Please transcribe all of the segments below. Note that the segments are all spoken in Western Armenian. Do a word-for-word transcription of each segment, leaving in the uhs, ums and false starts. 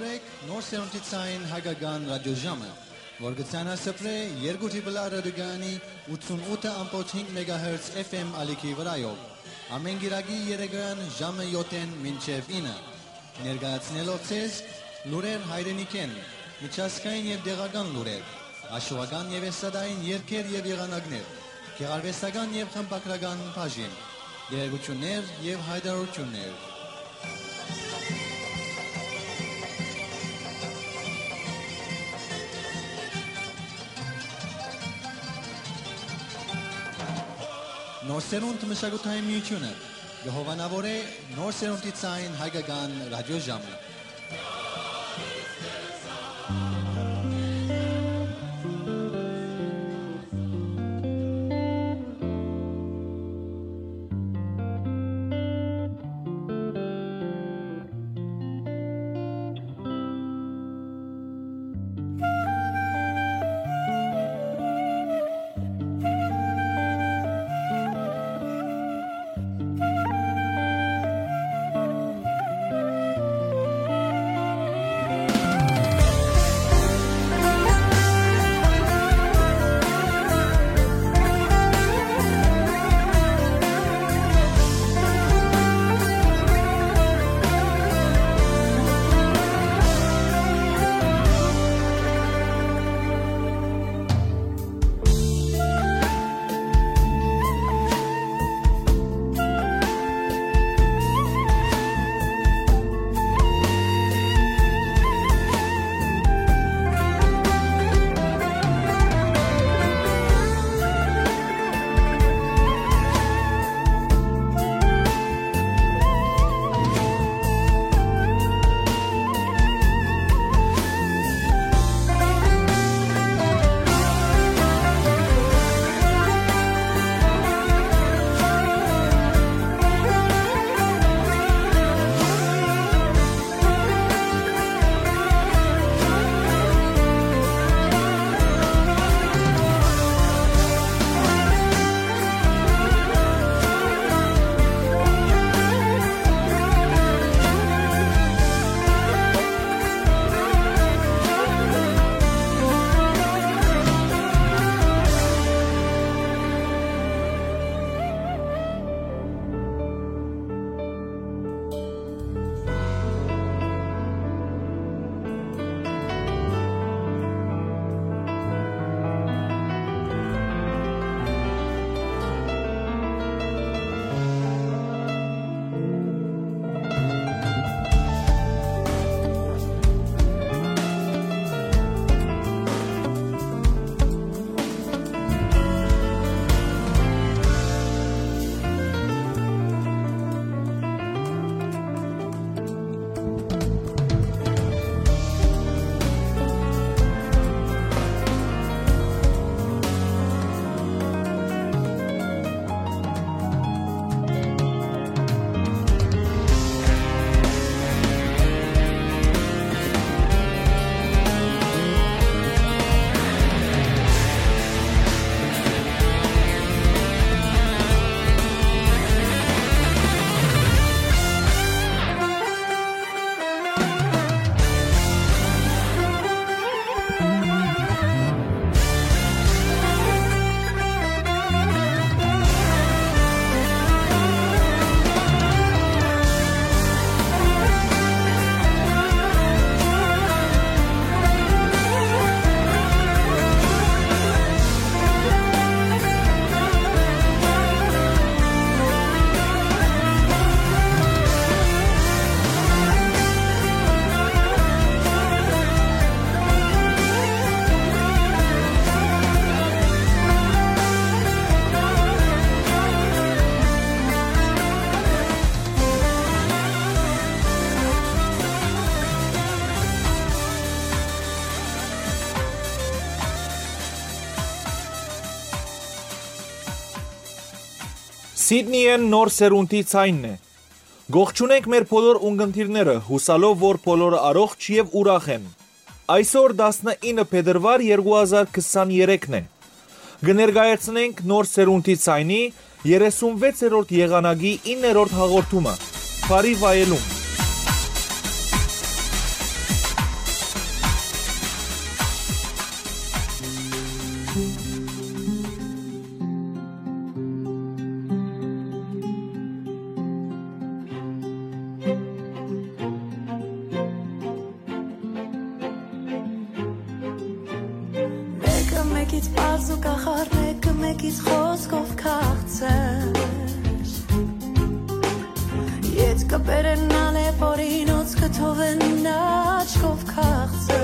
Նոր սերունդի ցային հայկական ռադիոժամը, որ կը ցանասփռէ երկու դիպլա ռադիոկայանի ութսունութ ըմբոց հինգ մեգահերց F M ալիքի վրայով, ամէն կիրակի երեկոյեան ժամը յոթ մինչեւ ինը, ներկայացնելով ձեզ լուրեր հայրենիքէն, միջազգային եւ տեղական լուրեր, հաշուական եւ էսատային երգեր եւ եղանակներ, գեղարուեստական եւ խմբագրական բաժին, տեղեկութիւններ եւ յայտարարութիւններ։ Նոր սերունդ մշակութային միութիւնը կը հովանաւորէ նոր սերունդի ցային հայկական ռադիոժամը։ Սիդնիէն նոր սերունդի ցայնն է։ Կողջունենք մեր բոլոր ունկնդիրները, յուսալով որ բոլորը առողջ եւ ուրախ են։ Այսօր տասնինը փետրուար երկու հազար քսաներեքն է։ Կը ներկայացնենք նոր սերունդի ցայնի երեսունվեցերորդ եղանակի իններորդ հաղորդումը։ Բարի վայելում։ Մեկը մեկից պարզ ու կախարդ, մեկը մեկից խոզկով քաղցր։ Ետ կը բերեն ալեփորինոց, կը թողեն աչքով քաղցր։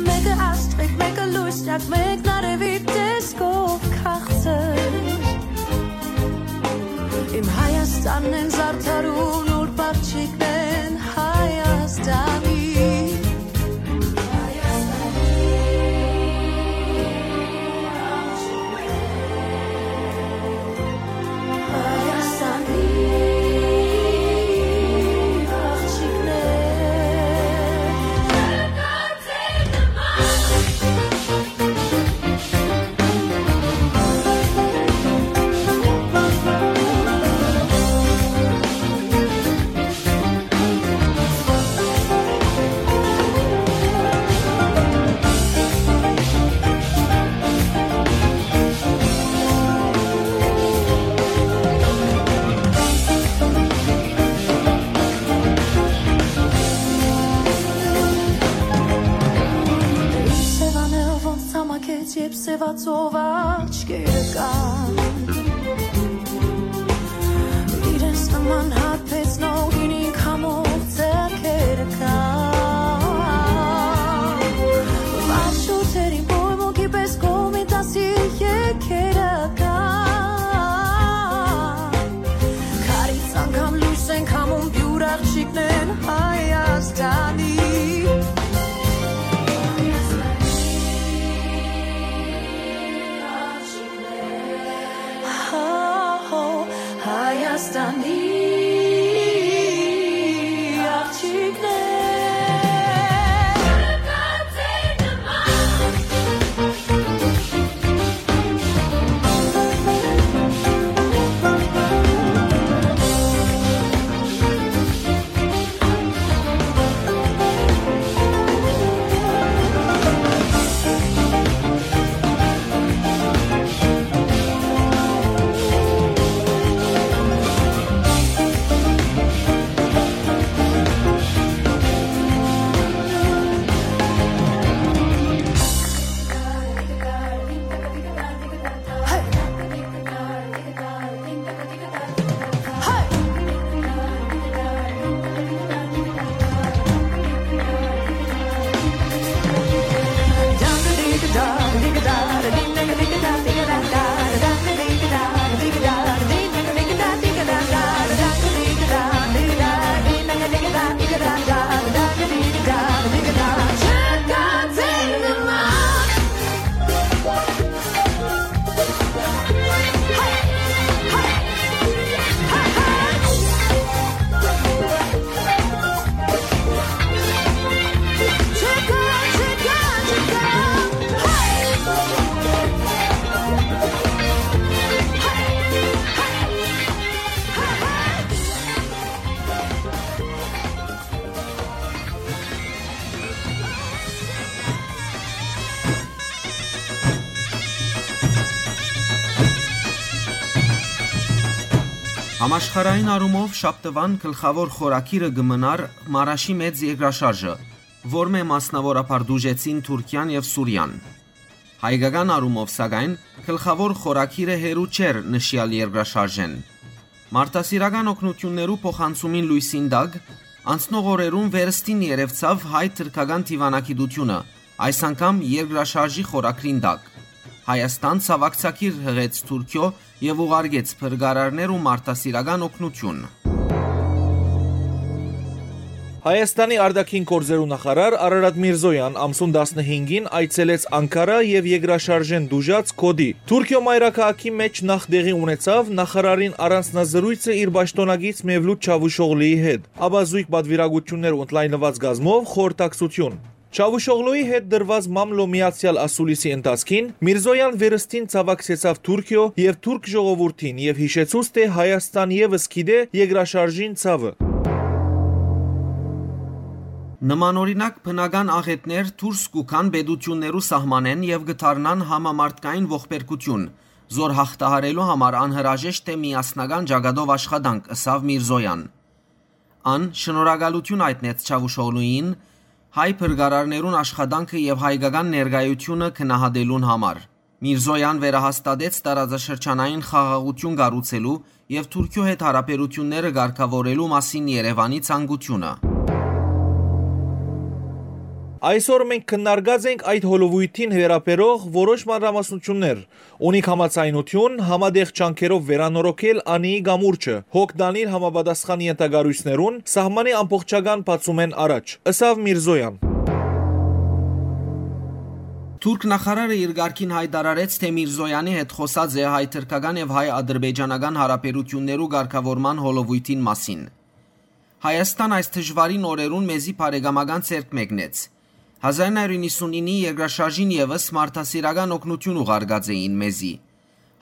Մեկը աստղիկ, մեկը լուսնյակ, մեկն արեւի տեսքով քաղցր։ Իմ Հայաստանն են զարդարուն, ուրբ աղջիկներն են Հայաստանի։ Սեւանել ոնց ցամաքեց, երբ սեւացող աչքերը կան։ Իրենց նման հարբեցնող ինքնին քամող ձեռքերը կան։ Վարշուտերին պոյմոկի պես կողմի դասի եկերը կան։ Քարից անգամ լույս են քամում, պիւր աղջիկներն են Հայաստանի։ Հայաստանի աղջիկներ։ Համաշխարհային առումով շաբթուան գլխաւոր խորագիրը կը մնար Մարաշի մեծ երկրաշարժը, որմէ մասնաւորաբար տուժեցին Թուրքիան եւ Սուրիան։ Հայկական առումով, սակայն, գլխաւոր խորագիրը հեռու չէր նշեալ երկրաշարժէն։ Մարդասիրական օգնութիւններու փոխանցումին լոյսին տակ, անցնող օրերուն վերստին երեւցաւ հայ-թրքական դիվանագիտութիւնը, այս անգամ երկրաշարժի խորագրին տակ։ Հայաստան ցաւակցագիր յղեց Թուրքիոյ եւ ուղարկեց փրկարարներ ու մարդասիրական օգնութիւն։ Հայաստանի արտաքին գործերու նախարար Արարատ Միրզոյան ամսուն տասնհինգին այցելեց Անկարա եւ երկրաշարժէն տուժած Կոտի։ Թուրքիոյ մայրաքաղաքի մէջ նախ տեղի ունեցաւ նախարարին առանձնազրույցը իր պաշտօնակից Մևլութ Չավուշօղլուի հետ, ապա զոյգ պատվիրակութիւններ ու ընդլայնուած կազմով խորհրդակցութիւն։ Չավուշօղլուի հետ տրուած մամլոյ միացեալ ասուլիսի ընթացքին Միրզոյան վերստին ցաւակցեցաւ Թուրքիոյ եւ թուրք ժողովուրդին եւ յիշեցուց, թէ Հայաստան եւս գիտէ երկրաշարժին ցաւը։ Նմանօրինակ բնական աղէտներ դուրս կու գան պետութիւններու սահմանէն եւ կը դառնան համամարդկային ողբերգութիւն, զոր յաղթահարելու համար անհրաժեշտ է միասնական ճակատով աշխատանք, ըսաւ Միրզոյան։ Ան շնորհակալութիւն յայտնեց Չավուշօղլուին, հայ փրկարարներուն աշխատանքը եւ հայկական ներկայութիւնը գնահատելուն համար։ Միրզոյան վերահաստատեց տարածաշրջանային խաղաղութիւն կառուցելու եւ Թուրքիոյ հետ յարաբերութիւնները կարգաւորելու մասին Երեւանի ցանկութիւնը։ Այսօր մենք քննարկած ենք այդ հոլովոյթին վերաբերող որոշ մանրամասնութիւններ։ Ունիք համաձայնութիւն՝ համատեղ ջանքերով վերանորոգել Անիի կամուրջը, հոգ տանիլ համապատասխան ենթակառոյցներուն սահմանի ամբողջական բացումէն առաջ, ըսաւ Միրզոյան։ Թուրք նախարարը իր կարգին յայտարարեց, թէ Միրզոյանի հետ խօսած է հայ-թրքական եւ հայ-ադրբեջանական յարաբերութիւններու կարգաւորման հոլովոյթին մասին։ Հայաստան այս դժուարին օրերուն մեզի բարեկամական ձեռք մեկնեց։ Հազար նոյ հարիւր իննսունինի երկրաշարժին եւս մարդասիրական օգնութիւն ուղարկած էին մեզի։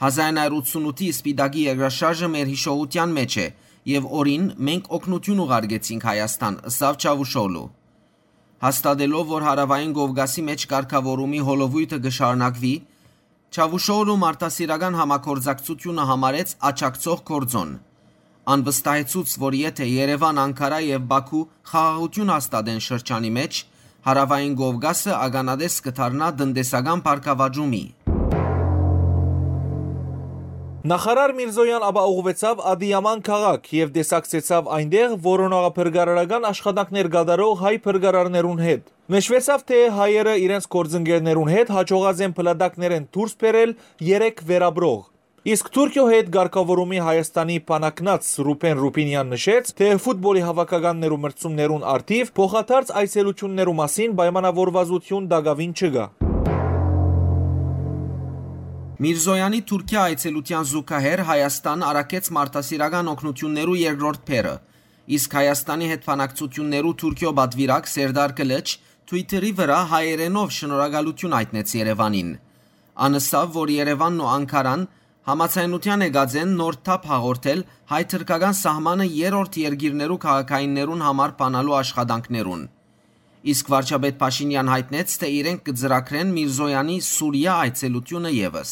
Հազար նոյ հարիւր ութսունութի Սպիտակի երկրաշարժը մեր յիշողութեան մէջ է, եւ օրին մենք օգնութիւն ուղարկեցինք Հայաստան, ըսաւ Չավուշօղլու։ Հաստատելով, որ Հարաւային Կովկասի մէջ կարգաւորումի հոլովոյթը կը շարունակուի, Չավուշօղլու մարդասիրական համագործակցութիւնը համարեց աջակցող գործօն։ Ան վստահեցուց, որ եթէ Երեւան, Անգարա եւ Բաքու խաղաղութիւն հաստատեն շրջանի մէջ, Հարաւային Կովկասը ականատես կը դառնայ տնտեսական բարգաւաճումի։ Նախարար Միրզոյան ապա ուղղուեցաւ Ադիաման քաղաք եւ տեսակցեցաւ այնտեղ որոնողափրկարարական աշխատանքներ կատարող հայ փրկարարներուն հետ։ Նշուեցաւ, թէ հայերը իրենց գործընկերներուն հետ յաջողած են փլատակներէն դուրս բերել երեք վերապրող։ Իսկ Թուրքիոյ հետ կարգաւորումի Հայաստանի բանակնաց Ռուբեն Ռուբինեան նշեց, թէ ֆուտբոլի հաւաքականներու մրցումներուն առթիւ փոխադարձ այցելութիւններու մասին պայմանաւորուածութիւն տակաւին չկայ։ Միրզոյանի Թուրքիա այցելութեան զուգահեռ Հայաստան առաքեց մարդասիրական օգնութիւններու երկրորդ բեռը, իսկ Հայաստանի հետ բանակցութիւններու Թուրքիոյ պատուիրակ Սերդար Կլիչ Twitter-ի վրայ հայերէնով շնորհակալութիւն յայտնեց Երեւանին։ Ան ըսաւ, որ Երեւանն ու Անգարան համաձայնութեան եկած են նոր թափ հաղորդել հայ-թրքական սահմանը երրորդ երկիրներու քաղաքայիններուն համար բանալու աշխատանքներուն։ Իսկ վարչապետ Փաշինեան յայտնեց, թէ իրենք կը ծրագրեն Միրզոյանի Սուրիա այցելութիւնը եւս։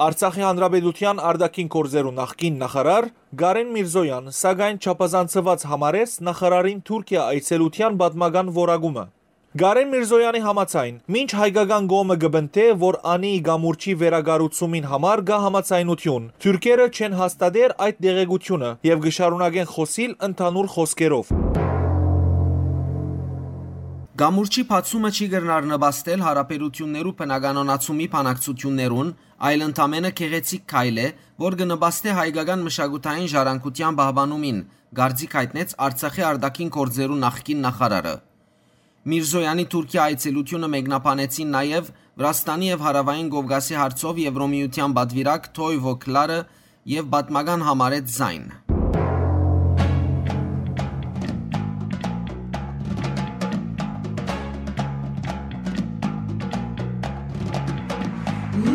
Արցախի Հանրապետութեան արտաքին գործերու նախկին նախարար Կարեն Միրզոյան, սակայն, չափազանցուած համարեց նախարարին Թուրքիա այցելութեան պատմական որակումը։ Կարեն Միրզոյանի համաձայն, մինչ հայկական կողմը կը պնդէ, որ Անիի կամուրջի վերակառուցումին համար կայ համաձայնութիւն, թուրքերը չեն հաստատեր այդ տեղեկութիւնը եւ կը շարունակեն խօսիլ ընդհանուր խօսքերով։ Կամուրջի բացումը չի կրնար նպաստել յարաբերութիւններու բնականոնացումի բանակցութիւններուն, այլ ընդամենը գեղեցիկ քայլ է, որ կը նպաստէ հայկական մշակութային ժառանգութեան պահպանումին, կարծիք յայտնեց Արցախի արտաքին գործերու նախկին նախարարը։ Միրզոյանի Թուրքիա այցելութիւնը մեկնաբանեցին նաեւ Վրաստանի եւ Հարաւային Կովկասի հարցով Եվրոմիութեան պատուիրակ Թոյվո Քլարը եւ պատմական համարեց զայն։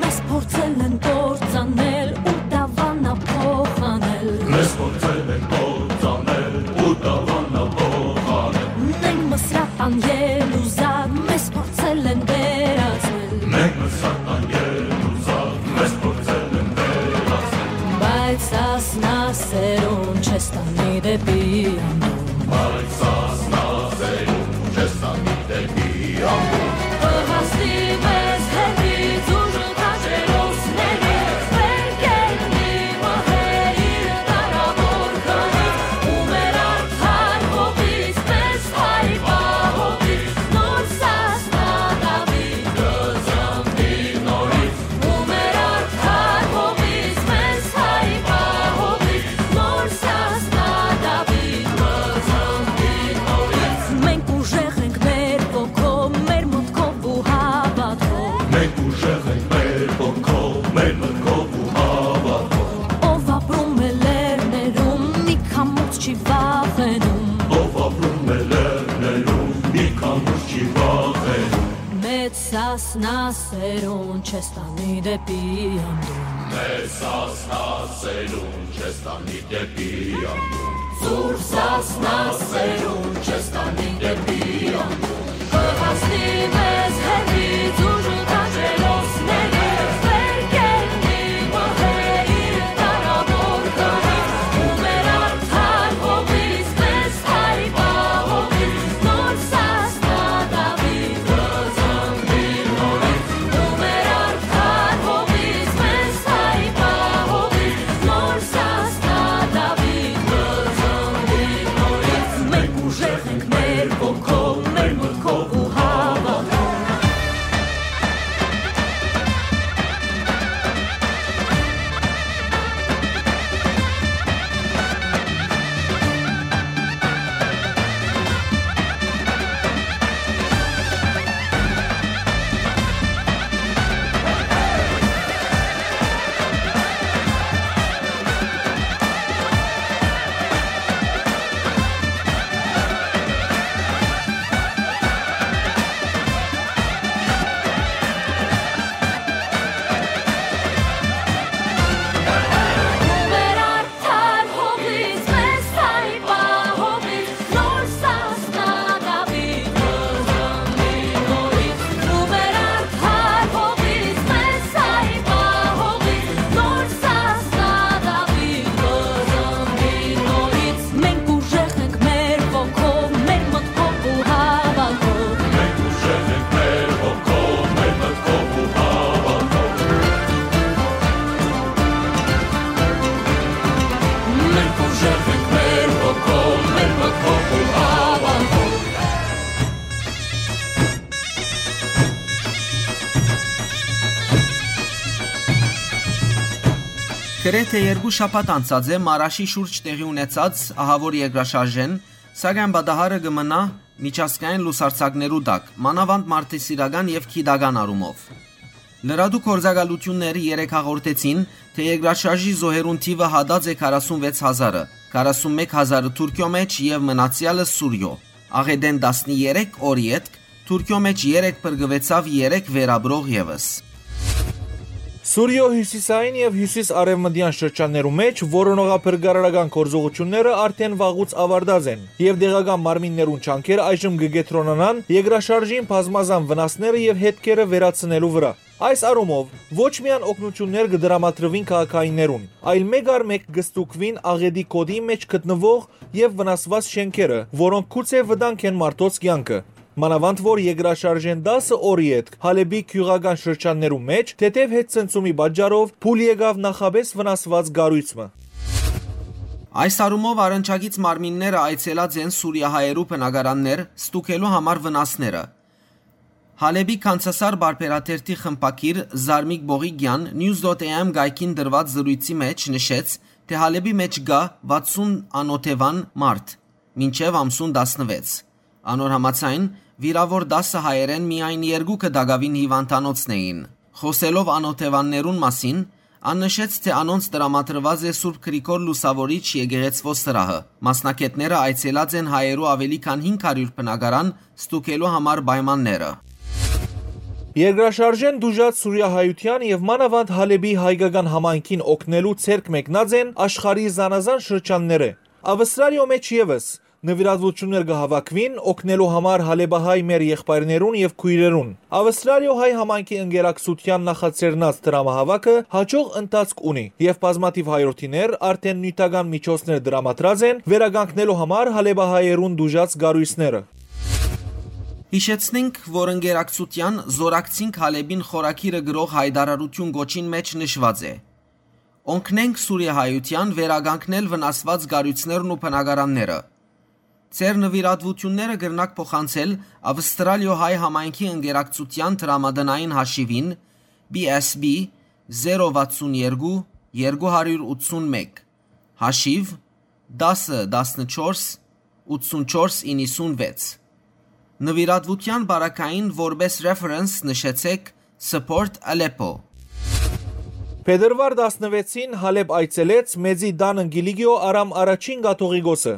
Մեզ փորձել են կործանել ու դավանա փոխանել։ Մեզ փորձել են կործանել ու դավանա փոխանել։ Մենք Մսրատան Ելուզակ, մեզ փորձել են վերածել։ Մենք Մսրատան Ելուզակ, մեզ փորձել են վերածել։ Բայց Սասնա սերուն չես տանի դեպի անդուն։ Բայց Սասնա սերուն չես տանի դեպի անդուն։ Կհասնի մեզ հեռվից ուժ քաջերոսների, վերկենդի մահերի տարավոր քարից, ու մեր արդար հողից մեզ հայ պահողից, նոր Սասնա Դավիթ կծնվի նորից, ու մեր արդար հողից մեզ հայ պահողից, նոր Սասնա Դավիթ կծնվի նորից։ Մենք ուժեղ ենք մեր ոգով, մեր մտքով ու հավատքով։ Մենք ուժեղ ենք մեր ոգով, մեր մտքով ու հավատքով։ Ով ապրում է լեռներում, մի քամուց չի վախենում։ Ով ապրում է լեռներում, մի քամուց չի վախենում։ Մեծ Սասնա սերուն չես տանի դեպի անդուն։ Մեծ Սասնա սերուն չես տանի դեպի անդուն։ Սուրբ Սասնա սերուն չես տանի դեպի անդուն։ Կհասնի մեզ հեռվից ուժ ու տաճերոսների, վեր կելնի մահը իր դարավոր գահից, ու մեր արդար հողից մեզ հայ պահողից, նոր Սասնա Դավիթ կզանգի նորից, ու մեր արդար հողից մեզ հայ պահողից, նոր Սասնա Դավիթ կզանգի նորից, մենք ուժեղ ենք մեր ոգով, մեր մտքով ու հավատքով։ Մենք ուժեղ ենք մեր ոգով, մեր մտքով ու հավատքով։ Մենք ուժեղ ենք մեր ոգով, մեր մտքով ու հավատքով։ Մենք ուժեղ ենք մեր ոգով, մեր մտքով ու հավատքով։ Գրեթէ երկու շաբաթ անցած է Մարաշի շուրջ տեղի ունեցած ահաւոր երկրաշարժէն, սակայն պատահարը կը մնայ միջազգային լուսարձակներու տակ, մանաւանդ մարդասիրական եւ գիտական առումով։ Լրատու գործակալութիւնները երեկ հաղորդեցին, թէ երկրաշարժի զոհերուն թիւը յատած է քառասունվեց հազարը, քառասունմեկ հազարը Թուրքիոյ մէջ եւ մնացեալը Սուրիոյ։ Աղէտէն տասներեք օր ետք Թուրքիոյ մէջ երեկ փրկուեցաւ երեք վերապրող եւս։ Սուրիոյ հիւսիսային եւ հիւսիս-արեւմտեան շրջաններու մէջ որոնողափրկարարական գործողութիւնները արդէն վաղուց աւարտած են եւ տեղական մարմիններուն ջանքերը այժմ կը կեդրոնանան երկրաշարժին բազմազան վնասները եւ հետքերը վերացնելու վրայ։ Այս առումով, ոչ միայն օգնութիւններ կը տրամադրուին քաղաքայիններուն, այլ մէկ առ մէկ կը ստուգուին աղէտի գօտի մէջ գտնուող եւ վնասուած շէնքերը, որոնք գուցէ վտանգ են մարդոց կեանքը։ Մանաւանդ որ երկրաշարժէն տասը օր ետք Հալէպի գիւղական շրջաններու մէջ, թեթեւ հետ ցնցումի պատճառով փուլ եկաւ նախապէս վնասուած կառոյց մը։ Այս առումով առնչակից մարմինները այցելած են սուրիահայերու բնակարաններ, ստուգելու համար վնասները։ Հալէպի Քանսասար պարբերաթերթի խմբագիր Զարմիկ Բողիկեան News dot A M կայքին տրուած զրոյցի մէջ նշեց, թէ Հալէպի մէջ կայ վաթսուն անօթեւան մարդ, մինչեւ ամսուն տասնվեց։ Անոր համաձայն, վիրաւոր տասը հայերէն միայն երկուքը տակաւին հիւանդանոցն էին։ Խօսելով անօթեւաններուն մասին, ան նշեց, թէ անոնց տրամադրուած է Սուրբ Գրիգոր Լուսաւորիչ եկեղեցւոյ սրահը։ Մասնագէտները այցելած են հայերու աւելի քան հինգ հարիւր բնակարան ստուգելու համար պայմանները։ Երկրաշարժէն տուժած սուրիահայութեան եւ մանաւանդ Հալէպի հայկական համայնքին օգնելու ձեռք մեկնած են աշխարհի զանազան շրջաններէ։ Ավստրալիոյ մէջ եւս նուիրատուութիւններ կը հաւաքուին օգնելու համար հալէպահայ մեր եղբայրներուն եւ քոյրերուն։ Ավստրալիոյ հայ համայնքի ընկերակցութեան նախաձեռնած դրամահաւաքը յաջող ընթացք ունի եւ բազմաթիւ հայրենիներ արդէն նիւթական միջոցներ տրամադրած են վերականգնելու համար հալէպահայերուն տուժած կառոյցները։ Յիշեցնենք, որ ընկերակցութեան «Զօրակցինք Հալէպին» խորագիրը գրող յայտարարութիւն կոչին մէջ նշուած է. «Օգնենք սուրիահայութեան վերականգնել վնասուած կառոյցներն ու բնակարանները։ Ձեր նուիրատուութիւնները կրնաք փոխանցել Ավստրալիոյ հայ համայնքի ընկերակցութեան դրամատնային հաշիւին՝ B S B, զերո վաթսուն երկու, երկու հարիւր ութսուն մէկ, հաշիւ՝ տասը, տասնչորս, ութսուն չորս, իննսուն վեց։ Նուիրատուութեան պարագային որպէս reference նշեցէք Support Aleppo»։ Փետրուար տասնվեցին Հալէպ այցելեց Մեծի Տանն Կիլիկիոյ Արամ Առաջին կաթողիկոսը։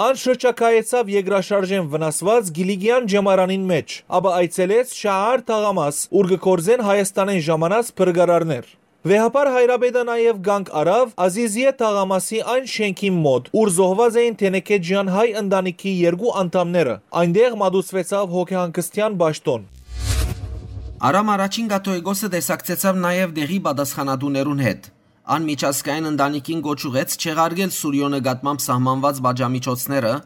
Ան շրջագայեցաւ երկրաշարժէն վնասուած Կիլիկիան ճեմարանին մէջ, ապա այցելեց Շահար թաղամաս, ուր կը գործեն Հայաստանէն ժամանած փրկարարներ։ Վեհափառ հայրապետը նաեւ կանգ առաւ Ազիզիե թաղամասի այն շէնքին մօտ, ուր զոհուած էին Թենեքեջեան հայ ընտանիքի երկու անդամները։ Այնտեղ մատուցուեցաւ հոգեհանգստեան պաշտօն։ Արամ Առաջին կաթողիկոսը տեսակցեցաւ նաեւ տեղի պատասխանատուներուն հետ։ Ան միջազգային ընտանիքին կոչ ուղղեց չեղարկել Սուրիոյ նկատմամբ սահմանուած պատժամիջոցները,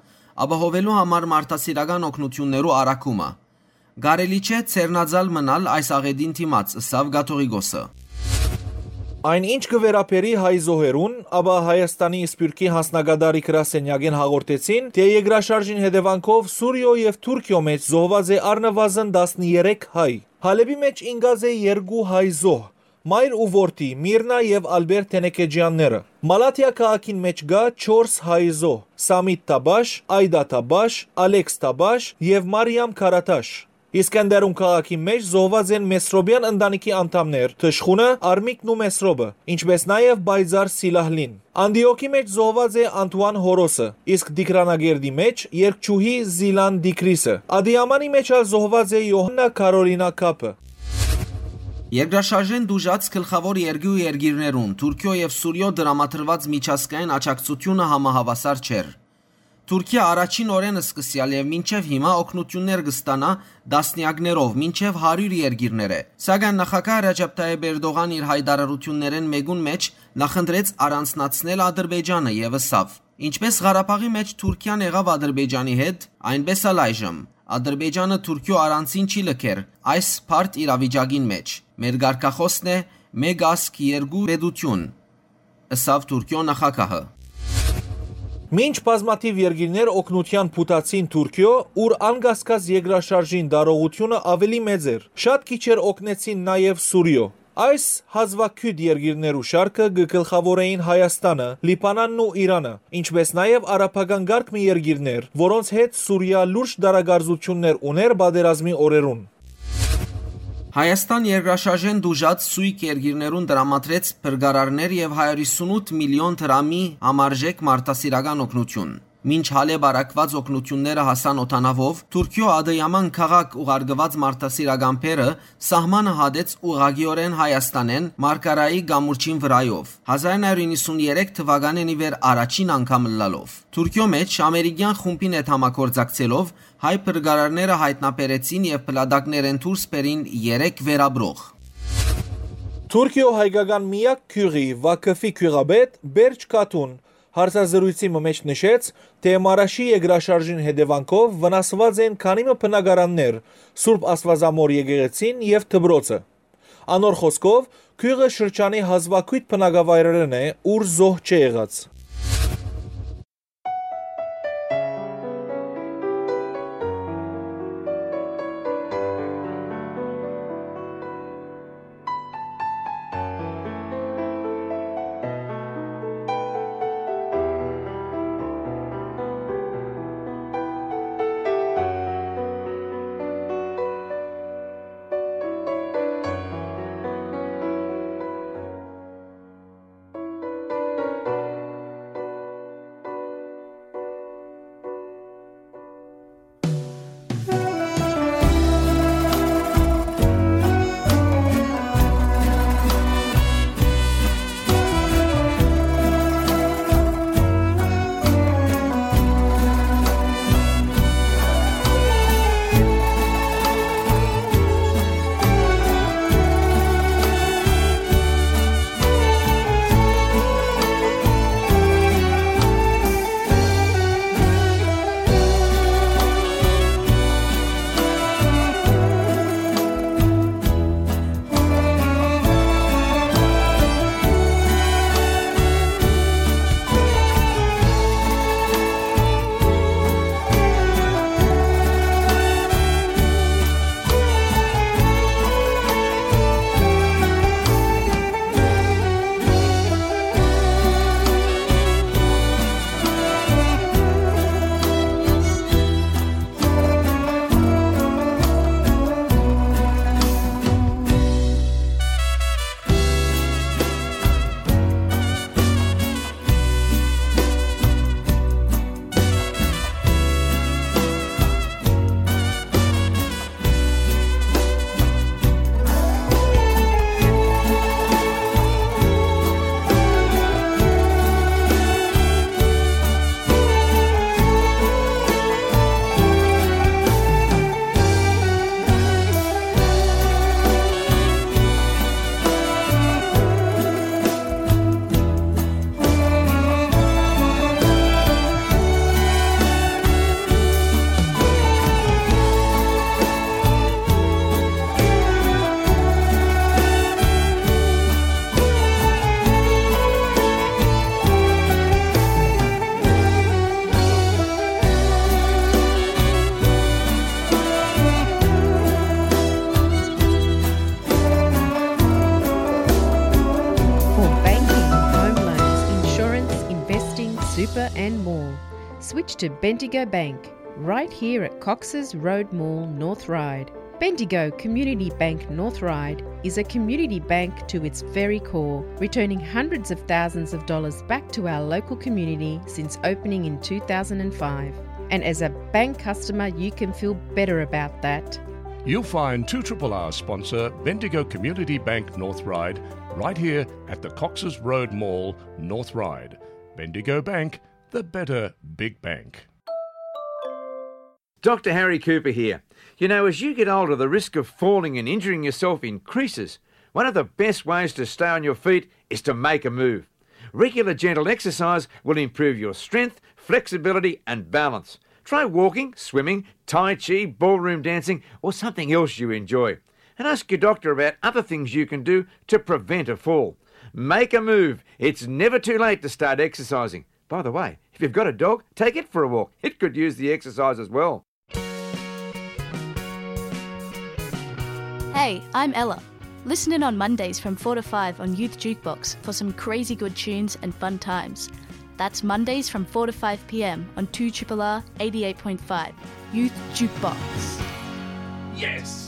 ապահովելու համար մարդասիրական օգնութիւններու առաքումը։ Կարելի չէ ձեռնածալ մնալ այս աղէտին դիմաց, ըսաւ կաթողիկոսը։ Այն ինչ կը վերաբերի հայ զոհերուն, ապա Հայաստանի Սփիւռքի յանձնակատարի գրասենյակէն հաղորդեցին, թէ երկրաշարժին հետեւանքով Սուրիոյ եւ Թուրքիոյ մէջ զոհուած է առնուազն տասներեք հայ։ Հալէպի մէջ ինկած է երկու հայ զոհ, մայր ու որդի՝ Միրնա եւ Ալբերտ Թենեքեջեանները։ Մալաթիա քաղաքին մէջ կայ չորս հայ զոհ՝ Սամիտ Թաբաշ, Այդա Թաբաշ, Ալեքս Թաբաշ եւ Մարիամ Քարաթաշ։ Իսկենդերուն քաղաքի մէջ զոհուած են Մեսրոպեան ընտանիքի անդամներ՝ թշխունը, Արմիկն ու Մեսրոպը, ինչպէս նաեւ պայծառ Սիլահլին։ Անտիոքի մէջ զոհուած է Անտուան Հորոսը, իսկ Տիգրանակերտի մէջ՝ երգչուհի Զիլան Տիգրիսը։ Ադիամանի մէջ ալ զոհուած է Յոհաննա Քարոլինա Քափը։ Երկրաշարժէն տուժած գլխաւոր երկու երկիրներուն՝ Թուրքիոյ եւ Սուրիոյ, տրամադրուած միջազգային աջակցութիւնը համահաւասար չէր։ Թուրքիա առաջին օրէն սկսեալ եւ մինչեւ հիմա օգնութիւններ կը ստանայ տասնեակներով, մինչեւ հարիւր երկիրներէ։ Սակայն նախագահ Ռեջեփ Թայեփ Էրտողան իր յայտարարութիւններէն մէկուն մէջ նախընտրեց առանձնացնել Ադրբեջանը եւ ըսաւ. «Ինչպէս Ղարաբաղի մէջ Թուրքիան եղաւ Ադրբեջանի հետ, այնպէս ալ այժմ։ Ադրբեջանը Թուրքիոյ առանձին չի լքեր այս բարդ իրավիճակին մէջ։ Մեր կարգախօսն է՝ մէկ ազգ, երկու պետութիւն», ըսաւ Թուրքիոյ նախագահը։ Մինչ բազմաթիւ երկիրներ օգնութեան փութացին Թուրքիոյ, ուր անկասկած երկրաշարժին տարողութիւնը աւելի մեծ էր, շատ քիչեր օգնեցին նաեւ Սուրիոյ։ Այս հազուագիւտ երկիրներու շարքը կը գլխաւորէին Հայաստանը, Լիբանանն ու Իրանը, ինչպէս նաեւ արաբական կարգ մը երկիրներ, որոնց հետ Սուրիա լուրջ տարակարծութիւններ ունէր պատերազմի օրերուն։ Հայաստան երկրաշարժէն տուժած սոյգ երկիրներուն տրամադրեց փրկարարներ եւ հարիւր ութ միլիոն դրամի համարժեք մարդասիրական օգնութիւն։ Մինչ Հալէպ առաքուած օգնութիւնները հասան օդանաւով, Թուրքիոյ Ադըյաման քաղաք ուղարկուած մարդասիրական բեռը սահմանը հատեց ուղղակիօրէն Հայաստանէն Մարկարայի կամուրջին վրայով, հազար նոյ հարիւր իննսուններեք թուականէն ի վեր առաջին անգամ ըլլալով։ Թուրքիոյ մէջ ամերիկեան խումբին հետ համագործակցելով հայ փրկարարները յայտնաբերեցին եւ փլատակներէն դուրս բերին երեք վերապրող։ Թուրքիոյ հայկական միակ գիւղի՝ Վաքֆի գիւղապետ Բերջ Քաթուն հարցազրոյցի մը մէջ նշեց, թէ Մարաշի երկրաշարժին հետեւանքով վնասուած են քանի մը բնակարաններ, Սուրբ Աստուածամոր եկեղեցին եւ դպրոցը։ Անոր խօսքով, գիւղը շրջանի հազուագիւտ բնակավայրերէն է, ուր զոհ չէ եղած։ to Bendigo Bank, right here at Cox's Road Mall, North Ryde. Bendigo Community Bank North Ryde is a community bank to its very core, returning hundreds of thousands of dollars back to our local community since opening in two thousand and five. And as a bank customer, you can feel better about that. You'll find two triple R sponsor Bendigo Community Bank North Ryde right here at the Cox's Road Mall, North Ryde. Bendigo Bank, the better big bank. Doctor Harry Cooper here. You know, as you get older, the risk of falling and injuring yourself increases. One of the best ways to stay on your feet is to make a move. Regular gentle exercise will improve your strength, flexibility, and balance. Try walking, swimming, Tai Chi, ballroom dancing, or something else you enjoy. And ask your doctor about other things you can do to prevent a fall. Make a move. It's never too late to start exercising. By the way, if you've got a dog, take it for a walk. It could use the exercise as well. Hey, I'm Ella. Listen in on Mondays from four to five on Youth Jukebox for some crazy good tunes and fun times. That's Mondays from four to five p.m. on two triple R eighty-eight point five Youth Jukebox. Yes!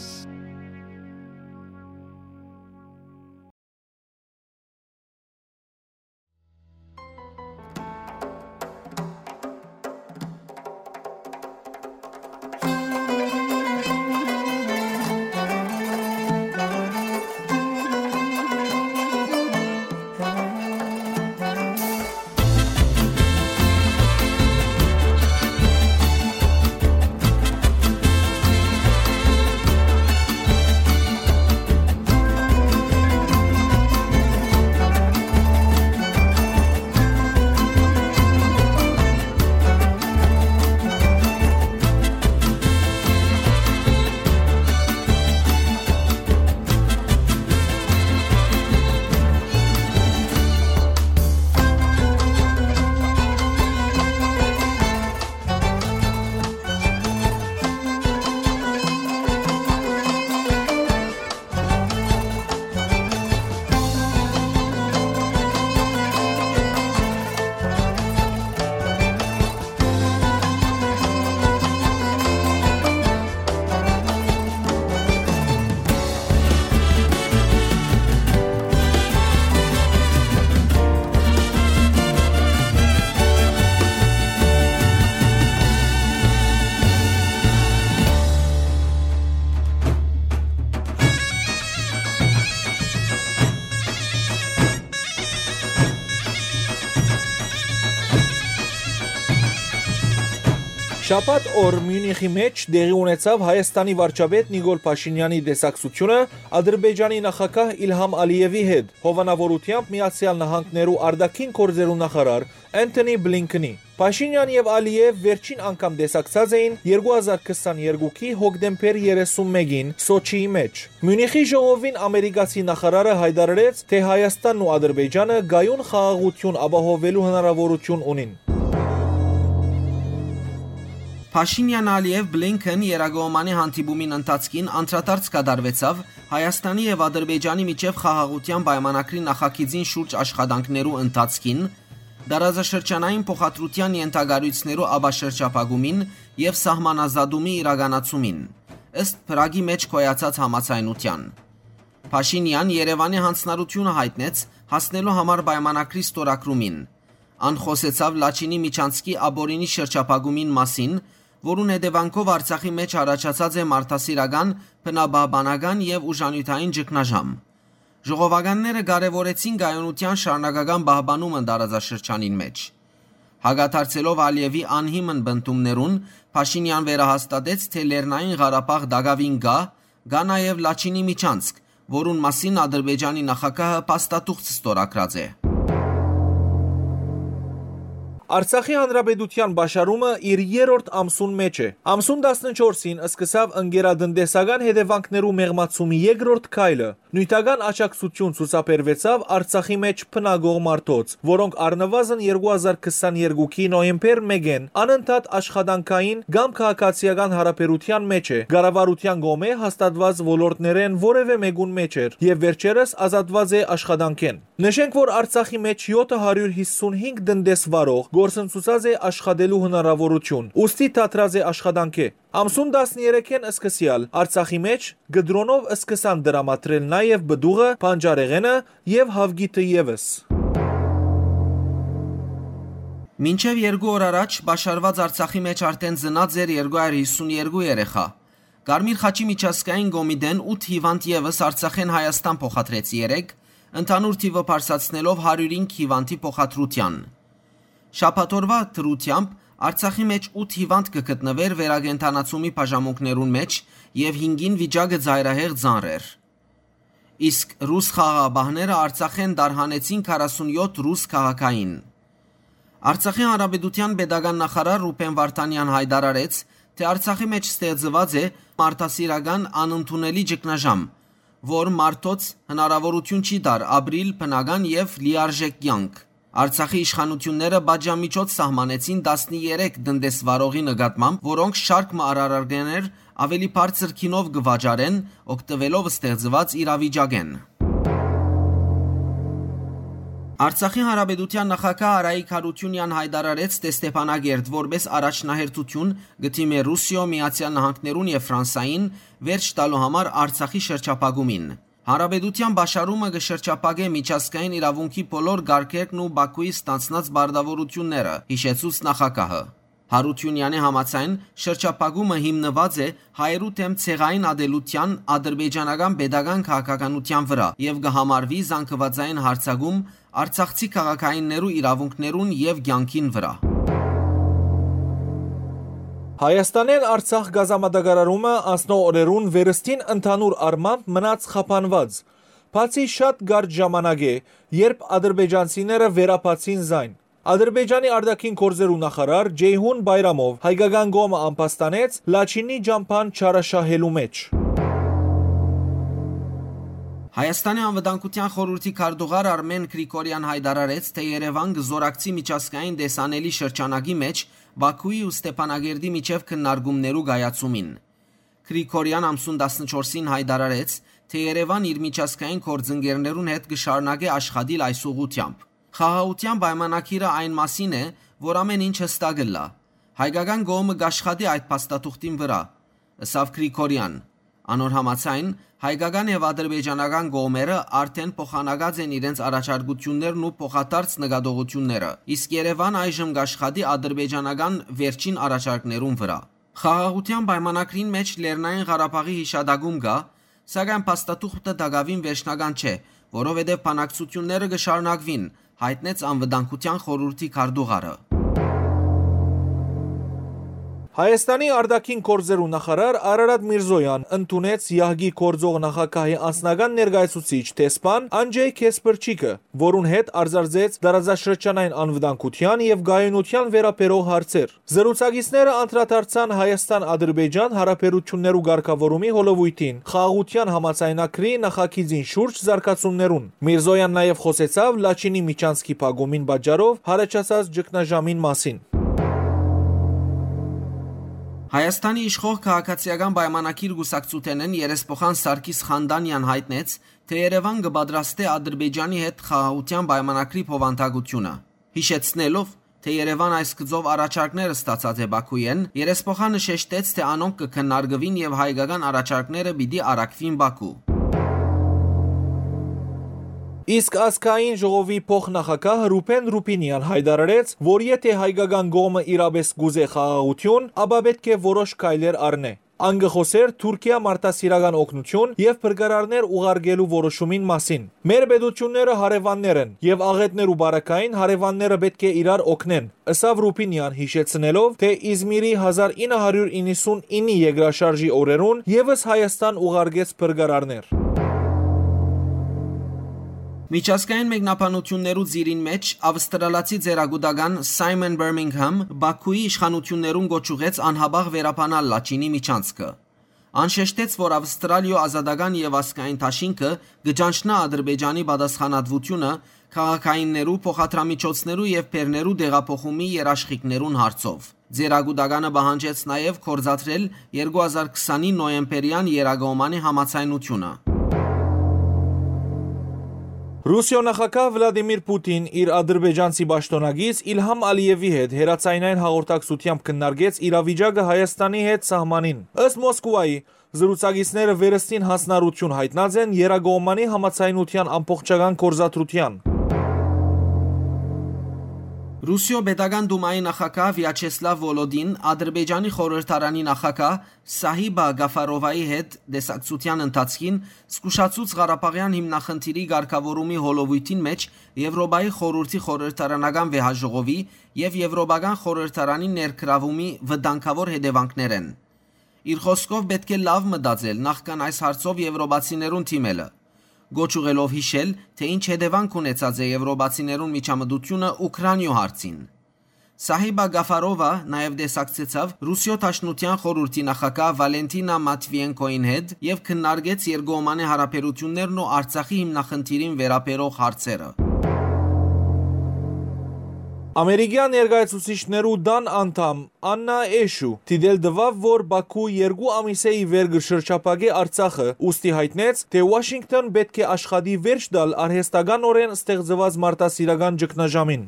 Շաբաթ օր Միունիխի մէջ տեղի ունեցաւ Հայաստանի վարչապետ Նիկոլ Փաշինեանի տեսակցութիւնը Ադրբեջանի նախագահ Իլհամ Ալիեւի հետ, հովանաւորութեամբ Միացեալ Նահանգներու արտաքին գործերու նախարար Անթոնի Բլինքնի։ Փաշինեան եւ Ալիեւ վերջին անգամ տեսակցած էին երկու հազար քսաներկուքի հոկտեմբեր երեսուն մէկին Սոչիի մէջ։ Միունիխի ժողովին ամերիկացի նախարարը յայտարարեց, թէ Հայաստանն ու Ադրբեջանը կայուն խաղաղութիւն ապահովելու հնարաւորութիւն ունին։ Փաշինեան, Ալիեւ, Բլինքեն երակողմանի հանդիպումին ընթացքին անդրադարձ կատարուեցաւ Հայաստանի եւ Ադրբեջանի միջեւ խաղաղութեան պայմանագրի նախագիծին շուրջ աշխատանքներու ընթացքին, տարածաշրջանային փոխադրութեան ենթակառոյցներու ապաշրջափակումին եւ սահմանազատումի իրականացումին, ըստ Փրագի մէջ գոյացած համաձայնութեան։ Փաշինեան Երեւանի յանձնառութիւնը յայտնեց հասնելու համար պայմանագրի ստորագրումին։ Ան խօսեցաւ Լաչինի միջանցքի ապօրինի շրջափակումին մասին, որուն հետեւանքով Արցախի մէջ առաջացած է մարդասիրական, բնապահպանական եւ ուժանիւթային ճգնաժամ։ Ժողովականները կարեւորեցին կայունութեան շարունակական պահպանումը տարածաշրջանին մէջ։ Հակադարձելով Ալիեւի անհիմն պնդումներուն, Փաշինեան վերահաստատեց, թէ Լեռնային Ղարաբաղ տակաւին կայ, կայ նաեւ Լաչինի միջանցք, որուն մասին Ադրբեջանի նախագահը փաստաթուղթ ստորագրած է։ Արցախի Հանրապետութեան պաշարումը իր երրորդ ամսուն մէջ է։ Ամսուն տասնչորսին սկսաւ ընկերատնտեսական հետեւանքներու մեղմացումի երկրորդ քայլը։ Նիւթական աջակցութիւն ցուցաբերուեցաւ Արցախի մէջ բնակող մարդոց, որոնք առնուազն երկու հազար քսաներկուքի նոյեմբեր մէկէն անընդհատ աշխատանքային կամ քաղաքացիական յարաբերութեան մէջ է, կառավարութեան կողմէ հաստատուած ոլորտներէն որեւէ մէկուն մէջ էր եւ վերջերս ազատուած է աշխատանքէն։ Նշենք, որ Արցախի մէջ յոթը հարիւր յիսունհինգ տնտեսվարող կորսնցուցած է աշխատելու հնարաւորութիւն, ուստի դադրած է աշխատանքէ։ Ամսուն տասներեքէն սկսեալ Արցախի մէջ կդրոնով սկսան տրամադրել նաեւ պտուղը, բանջարեղէնը եւ հաւկիթը եւս։ Մինչեւ երկու օր առաջ պաշարուած Արցախի մէջ արդէն ծնած էր երկու հարիւր հիսուն երկու երեխայ։ Կարմիր խաչի միջազգային կոմիտէն ութ հիւանդ եւս Արցախէն Հայաստան փոխադրեց երեկ, ընդհանուր թիւը բարձրացնելով հարիւր հինգ հիւանդի փոխադրութեան։ Շաբաթօրուայ դրութեամբ Արցախի մէջ ութ հիւանդ կը գտնուէր վերակենդանացումի բաժանմունքներուն մէջ եւ հինգին վիճակը ծայրահեղ ծանր էր։ Իսկ ռուս խաղաղապահները Արցախէն տարհանեցին քառասունյոթ ռուս քաղաքային։ Արցախի Հանրապետութեան պետական նախարար Ռուբեն Վարդանեան յայտարարեց, թէ Արցախի մէջ ստեղծուած է մարդասիրական անընդունելի ճգնաժամ, որ մարդոց հնարաւորութիւն չի տար ապրիլ բնական եւ լիարժէք կեանք։ Արցախի իշխանութիւնները պատժամիջոց սահմանեցին տասներեք տնտեսվարողի նկատմամբ, որոնք շարք մը արարագներ աւելի բարձր գինով կը վաճառեն՝ օգտուելով ստեղծուած իրավիճակէն։ Արցախի Հանրապետութեան նախագահ Արայիկ Յարութիւնեան յայտարարեց, թէ Ստեփանակերտ որպէս առաջնահերթութիւն կը դիմէ Ռուսիոյ, Միացեալ Նահանգներուն եւ Ֆրանսային վերջ տալու համար Արցախի շրջափակումին։ Հանրապետութեան պաշարումը կը շրջափակէ միջազգային իրաւունքի բոլոր կարգերն ու Բաքուի ստանձնած պարտաւորութիւնները, յիշեցուց նախագահը։ Յարութիւնեանի համաձայն, շրջափակումը հիմնուած է հայերու դէմ ցեղային ատելութեան, ադրբեջանական պետական քաղաքականութեան վրայ եւ կը համարուի զանգուածային յարձակում արցախցի քաղաքայիններու իրաւունքներուն եւ կեանքին վրայ։ Հայաստանէն Արցախ գազամատակարարումը անցնող օրերուն վերստին ընդհանուր առմամբ մնաց խափանուած, բացի շատ կարճ ժամանակէ, երբ ադրբեջանցիները վերաբացին զայն։ Ադրբեջանի արտաքին գործերու նախարար Ջեյհուն Բայրամով հայկական կողմը ամբաստանեց Լաչինի ճամբան չարաշահելու մէջ։ Հայաստանի Անվտանգութեան խորհուրդի քարտուղար Արմեն Գրիգորեան յայտարարեց, թէ Երեւան կը զօրակցի միջազգային տեսանելի շրջանակի մէջ Բաքուի ու Ստեփանակերտի միջեւ քննարկումներու կայացումին։ Գրիգորեան ամսուն տասնչորսին յայտարարեց, թէ Երեւան իր միջազգային գործընկերներուն հետ կը շարունակէ աշխատիլ այս ուղղութեամբ։ Խաղաղութեան պայմանագիրը այն մասին է, որ ամէն ինչ յստակ ըլլայ։ Հայկական կողմը կ'աշխատի այդ փաստաթուղթին վրայ, ըսաւ Գրիգորեան։ Անոր համաձայն, հայկական եւ ադրբեջանական կողմերը արդէն փոխանակած են իրենց առաջարկութիւններն ու փոխադարձ նկատողութիւնները, իսկ Երեւան այժմ կ'աշխատի ադրբեջանական վերջին առաջարկներուն վրայ։ Խաղաղութեան պայմանագրին մէջ Լեռնային Ղարաբաղի յիշատակում կայ, սակայն փաստաթուղթը տակաւին վերջնական չէ, որովհետեւ բանակցութիւնները կը շարունակուին, յայտնեց Անվտանգութեան խորհուրդի քարտուղարը։ Հայաստանի արտաքին գործերու նախարար Արարատ Միրզոյան ընդունեց յահկի գործող նախագահի անձնական ներկայացուցիչ դեսպան Անջեյ Քեսպրչիկը, որուն հետ արծարծեց տարածաշրջանային անվտանգութեան եւ կայունութեան վերաբերող հարցեր։ Զրուցակիցները անդրադարձան Հայաստան-Ադրբեջան հարաբերութիւններու կարգաւորումի հոլովոյթին, խաղաղութեան համաձայնագրի նախագիծին շուրջ զարգացումներուն։ Միրզոյան նաեւ խօսեցաւ Լաչինի միջանցքի փակումին պատճառով յառաջացած ճգնաժամին մասին։ Հայաստանի իշխող Քաղաքացիական պայմանագիր կուսակցութենէն երեսփոխան Սարգիս Խանդանեան յայտնեց, թէ Երեւան կը պատրաստէ Ադրբեջանի հետ խաղաղութեան պայմանագրի բովանդակութիւնը, յիշեցնելով, թէ Երեւան այս գծով առաջարկներ ստացած է Բաքուէն, երեսփոխանը շեշտեց, թէ անոնք կը քննարկուին եւ հայկական առաջարկները պիտի առաքուին Բաքու։ Իսկ ազգային ժողովի փոխնախագահ Ռուբեն Ռուբինեան յայտարարեց, որ եթէ հայկական կողմը իրապէս կ'ուզէ խաղաղութիւն, ապա պէտք է որոշ քայլեր առնէ։ Ան կը խօսէր Թուրքիա մարդասիրական օգնութիւն եւ փրկարարներ ուղարկելու որոշումին մասին։ «Մեր պետութիւնները հարեւաններ են եւ աղէտներու պարագային հարեւանները պէտք է իրար օգնեն», ըսաւ Ռուբինեան, յիշեցնելով, թէ Իզմիրի հազար ինը հարիւր իննսունիննի երկրաշարժի օրերուն եւս Հայաստան ուղարկեց փրկարարներ։ Միջազգային մեկնաբանութիւններու ծիրին մէջ ավստրալացի ծերակուտական Սայմոն Բերմինգհամ Բաքուի իշխանութիւններուն կոչ ուղղեց անհապաղ վերաբանալ Լաչինի միջանցքը։ Ան շեշտեց, որ Ավստրալիոյ ազատական եւ ազգային դաշինքը կը ճանչնայ Ադրբեջանի պատասխանատվութիւնը քաղաքայիններու, փոխադրամիջոցներու եւ բեռներու տեղափոխումի երաշխիքներուն հարցով։ Ձեռագուտականը պահանջեց նաեւ գործադրել երկու հազար քսանի նոյեմբերեան Երակոմանի համաձայնութիւնը։ Ռուսիոյ նախագահ Վլադիմիր Պուտին իր ադրբեջանցի պաշտօնակից Իլհամ Ալիեւի հետ հեռաձայնային հաղորդակցութեամբ քննարկեց իրավիճակը Հայաստանի հետ սահմանին։ Ըստ Մոսկուայի, զրուցակիցները վերստին յանձնառութիւն յայտնած են եռակողմանի համաձայնութեան ամբողջական գործադրութեան։ Ռուսիոյ Պետական Դումայի նախագահ Վիաչեսլավ Վոլոդին Ադրբեջանի խորհրդարանի նախագահ Սահիբա Գաֆարովայի հետ տեսակցութեան ընթացքին զգուշացուց Ղարաբաղեան հիմնախնդիրի կարգաւորումի հոլովոյթին մէջ Եւրոպայի խորհուրդի խորհրդարանական վեհաժողովի եւ Եւրոպական խորհրդարանի ներգրաւումի վտանգաւոր հետեւանքներէն։ Իր խօսքով, պէտք է լաւ մտածել նախքան այս հարցով եվրոպացիներուն դիմելը, գոչ ուղղելով յիշել, թէ ինչ հետեւանք ունեցած է եվրոպացիներուն միջամտութիւնը Ուքրանիոյ հարցին։ Սահիբա Գաֆարովա նաեւ տեսակցեցաւ Ռուսիոյ Դաշնութեան խորհուրդի նախագահ Վալենտինա Մատվիենկոյին հետ եւ քննարկեց երկկողմանի յարաբերութիւններն ու Արցախի հիմնախնդիրին վերաբերող հարցերը։ Ամերիկեան ներկայացուցիչներու տան անդամ Աննա Էշու դիտել տուաւ, որ Բաքու երկու ամիս է ի վեր կը շրջափակէ Արցախը, ուստի յայտնեց, թէ Ուաշինկտոն պէտք է աշխատի վերջ տալ արհեստականօրէն ստեղծուած մարդասիրական ճգնաժամին։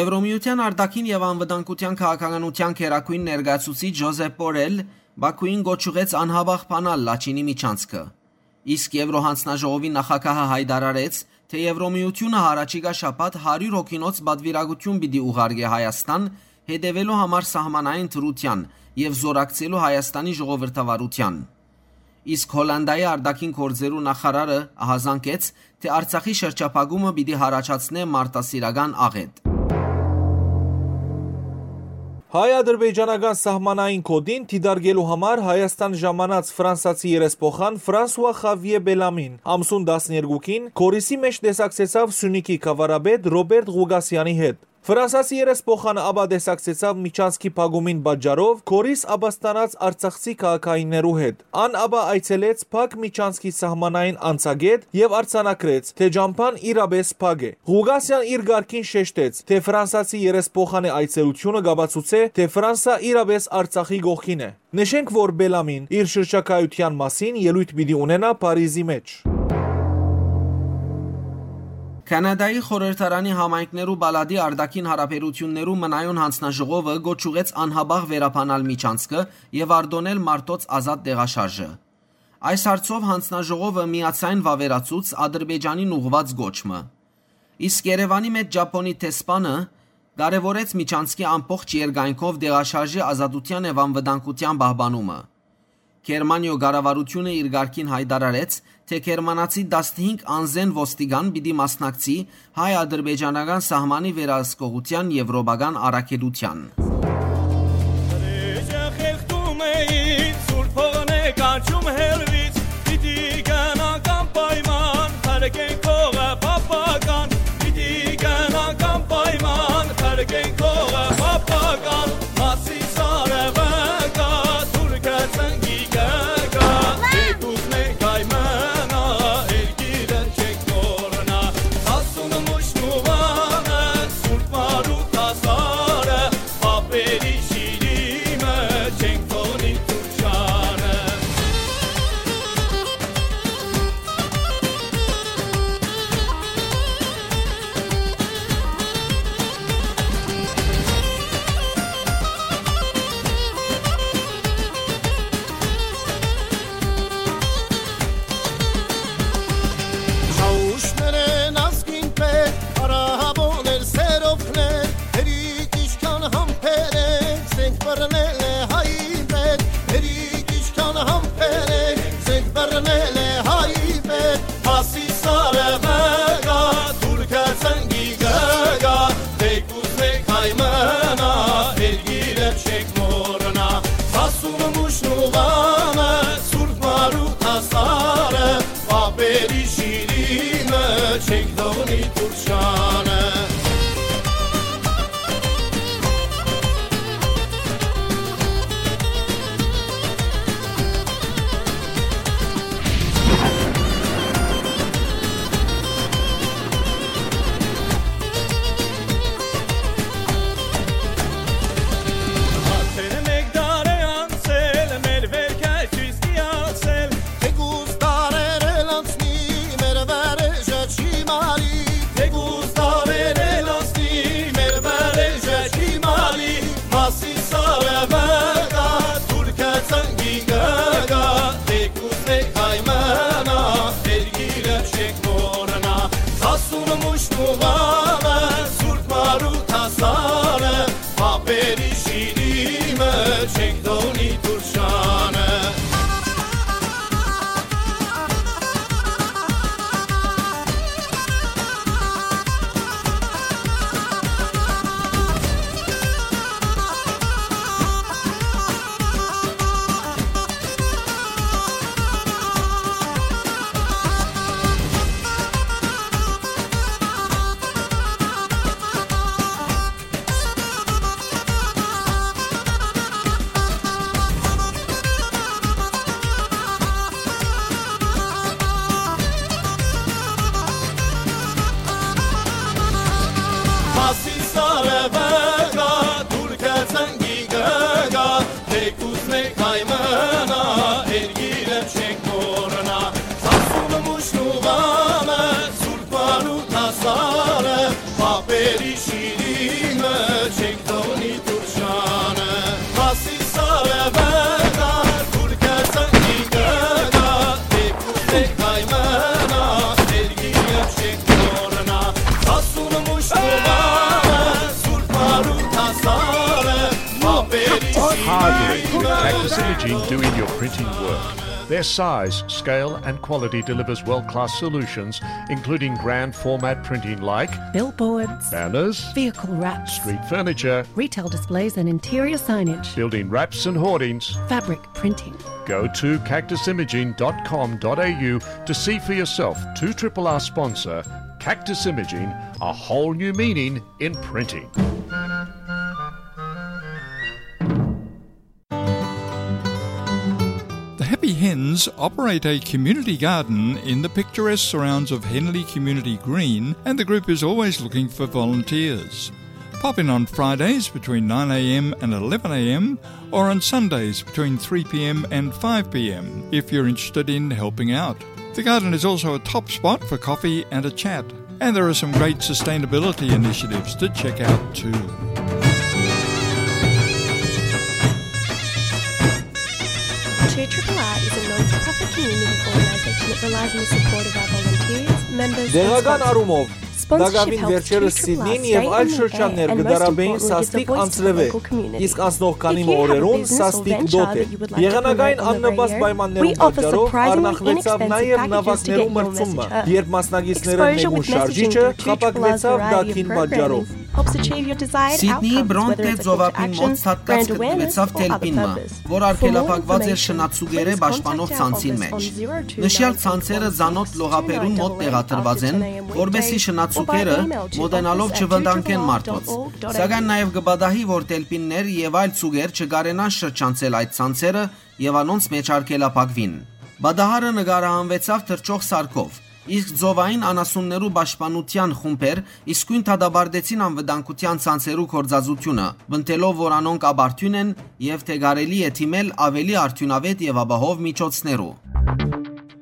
Եվրոմիութեան արտաքին եւ անվտանգութեան քաղաքականութեան գերագույն ներկայացուցիչ Ժոզեփ Պորել Բաքուին կոչ ուղղեց անհապաղ բանալ Լաչինի միջանցքը։ Իսկ Եվրոյանձնաժողովի նախագահը յայտարարեց, թէ Եվրոմիութիւնը յառաջիկայ շաբաթ հարիւր հոգինոց պատուիրակութիւն պիտի ուղարկէ Հայաստան, հետեւելու համար սահմանային դրութեան եւ զօրակցելու Հայաստանի ժողովրդավարութեան։ Իսկ Հոլանտայի արտաքին գործերու նախարարը ահազանգեց, թէ Արցախի շրջափակումը պիտի յառաջացնէ մարդասիրական աղէտ։ Հայ-ադրբեջանական սահմանային գօտին դիտարկելու համար Հայաստան ժամանած ֆրանսացի երեսփոխան Ֆրանսուա Խավիե Բելամին ամսուն տասներկուքին Գորիսի մէջ տեսակցեցաւ Սիւնիքի գաւառապետ Ռոբերտ Ղուկասեանի հետ։ Ֆրանսացի երեսփոխանը ապա տեսակցեցաւ միջանցքի փակումին պատճառով Գորիս ապաստանած արցախցի քաղաքայիններու հետ։ Ան ապա այցելեց փակ միջանցքի սահմանային անցակետ եւ արձանագրեց, թէ ճամբան իրապէս փակ է։ Ղուկասեան իր կարգին շեշտեց, թէ ֆրանսացի երեսփոխանի այցելութիւնը կապացուցէ, թէ Ֆրանսա իրապէս Արցախի կողքին է։ Նշենք, որ Բելամին իր շրջագայութեան մասին ելոյթ պիտի ունենայ Փարիզի մէջ։ Քանադայի խորհրդարանի համայնքներու պալատի արտաքին յարաբերութիւններու մնայուն յանձնաժողովը կոչ ուղղեց անհապաղ վերաբանալ միջանցքը եւ արտոնել մարդոց ազատ տեղաշարժը։ Այս հարցով յանձնաժողովը միաձայն վաւերացուց Ադրբեջանին ուղղուած կոչ մը։ Իսկ Երեւանի մէջ Ճապոնի դեսպանը կարեւորեց միջանցքի ամբողջ երկայնքով տեղաշարժի ազատութեան եւ անվտանգութեան պահպանումը։ Գերմանիոյ կառավարութիւնը իր կարգին յայտարարեց, թէ գերմանացի տասնհինգ անզէն ոստիկան պիտի մասնակցի հայ-ադրբեջանական սահմանի վերահսկողութեան եվրոպական առաքելութեան։ Խեղդում էին սուրբ հողն է կանչում հեռվից, պիտի գնանք անպայման, փրկենք հողը պապական, պիտի գնանք անպայման, փրկենք հողը պապական, Ասի սարը վկա, թուրքը ծնկի կկա, դե կուզնենք կայմնա, երկիրը չենք մոռնա, ասուն մուշնուվանը, սուրբ մարու տասարը, պապերի շիրիմը, չենք թողնի Թուրքիանը։ Հաուշներէն ազգին պետ, արաբոներ, սերովքներ, հերիք ինչքան համբերեք, զենք բռնել է հայ պետ, հերիք ինչքան համբերեք, զենք բռնել է հայ պետ, Ասի սարը վկա, թուրքը ծնկի կկա, դե կուզնեք հայ մնա, երկիրը չեք մոռնա, ասում մուշնուվանը, սուրբ մարու տասարը, պապերի շիրիմը, չենք թողնի Թուրքիանը։ Արդեն մէկ դար է անցել, մեր վերքը չի ստիացել, թեկուզ դարեր էլ անցնի, Մուշտուղանը, Սուրբ Մարութ Հասանը, Պապերի շիրիմը, չենք թողնի Թուրքանը։ Մասիսարը վեգա, Թուրքը ծնկի գգա, թեկուզ մեկ հայ մնա, երկիրը չենք մոռնա։ Սասունը մուշնուղանը, Սուրբ Մարութ Հասանը, Պապերի շիրիմը, չենք թողնի Թուրքանը։ Մասիսարը վեգա, Թուրքը ծնկի գգա, թեկուզ մեկ հայ մնա, երկիրը չենք մոռնա։ Սասունը մուշնուղանը, Սուրբ Մարութ Հասանը, Պապերի շիրիմը, Cactus Imaging doing your printing work. Their size, scale, and quality delivers world-class solutions, including grand format printing like billboards, banners, vehicle wraps, street furniture, retail displays and interior signage, building wraps and hoardings, fabric printing. Go to cactus imaging dot com dot a u to see for yourself. Two triple R sponsor, Cactus Imaging, a whole new meaning in printing. The Happy Hens operate a community garden in the picturesque surrounds of Henley Community Green, and the group is always looking for volunteers. Pop in on Fridays between nine a m and eleven a m, or on Sundays between three p m and five p m if you're interested in helping out. The garden is also a top spot for coffee and a chat. And there are some great sustainability initiatives to check out too. Two triple R is a non-profit community organisation that relies on the support of our volunteers, members and Տեղական sponsors. Առումով, Sponsorship տակաւին helps վերջերս two triple R Սիդնին stay եւ on այլ the շրջաններ air and կը most դարաբեին importantly gives a սաստիկ voice to the անձրեւէ, local community. Իսկ անցնող քանի մը օրերուն սաստիկ դոթ է։ Եղանակային աննպաստ պայմաններուն պատճառով արնախվեցաւ նաեւ նաւակներու մրցումը, երբ մասնակիցներէն մէկուն շարժիչը խաբագնեցաւ դաթին պատճառով։ Սիդնիի Բրոնտե ծովափին մօտ ցատկած գտնուեցաւ թելպին մը, որ արգելափակուած էր շնացուկերէ պաշտպանող ցանցին մէջ։ Նշեալ ցանցերը ծանօթ լողափերուն մօտ տեղադրուած են, որպէսզի շնացուկերը մօտենալով չվտանգեն մարդոց, սակայն նաեւ կը պատահի, որ թելպիններ եւ այլ ծուկեր չկարենան շրջանցել այդ ցանցերը եւ անոնց մէջ արգելափակուին։ Պատահարը նկարահանուեցաւ թռչող սարքով, իսկ ծովային անասուններու պաշտպանութեան խումբեր իսկոյն դատապարտեցին անվտանգութեան ցանցերու գործածութիւնը, պնդելով, որ անոնք ապարդիւն են եւ թէ կարելի է դիմել աւելի արդիւնաւէտ եւ ապահով միջոցներու։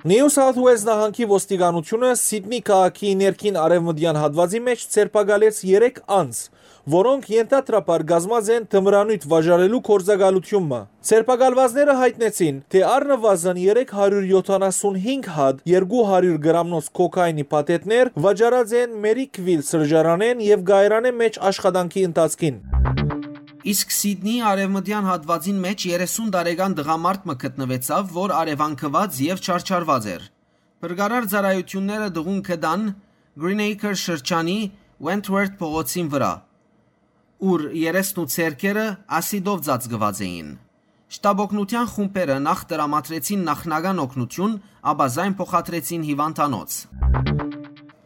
Նիու Սաութ Ուելզ նահանգի ոստիկանութիւնը Սիդնի քաղաքի ներքին արեւմտեան հատուածի մէջ ձերբակալեց երեք անձ, որոնք ենթադրաբար կազմած են թմրանիւթ վաճառելու գործակալութիւն մը։ Ձերբակալուածները յայտնեցին, թէ առնուազն երեք հարիւր եթանասունհինգ հատ երկու հարիւր գրամնոց քոքայինի փաթեթներ վաճառած են Մերիքվիլ սրճարանէն եւ կայարանէն մէջ աշխատանքի ընթացքին։ Իսկ Սիդնիի արեւմտեան հատուածին մէջ երեսուն տարեկան տղամարդ մը գտնուեցաւ, որ արեւանքուած եւ չարչարուած էր։ Փրկարար ծառայութիւնները տղուն գտան Greenacre շրջանի Wentworth փողոցին վրայ, ուր երեսն ու ձեռքերը ասիդով ծածկուած էին։ Շտապօգնութեան խումբերը նախ տրամադրեցին նախնական օգնութիւն, ապա զայն փոխադրեցին հիւանդանոց։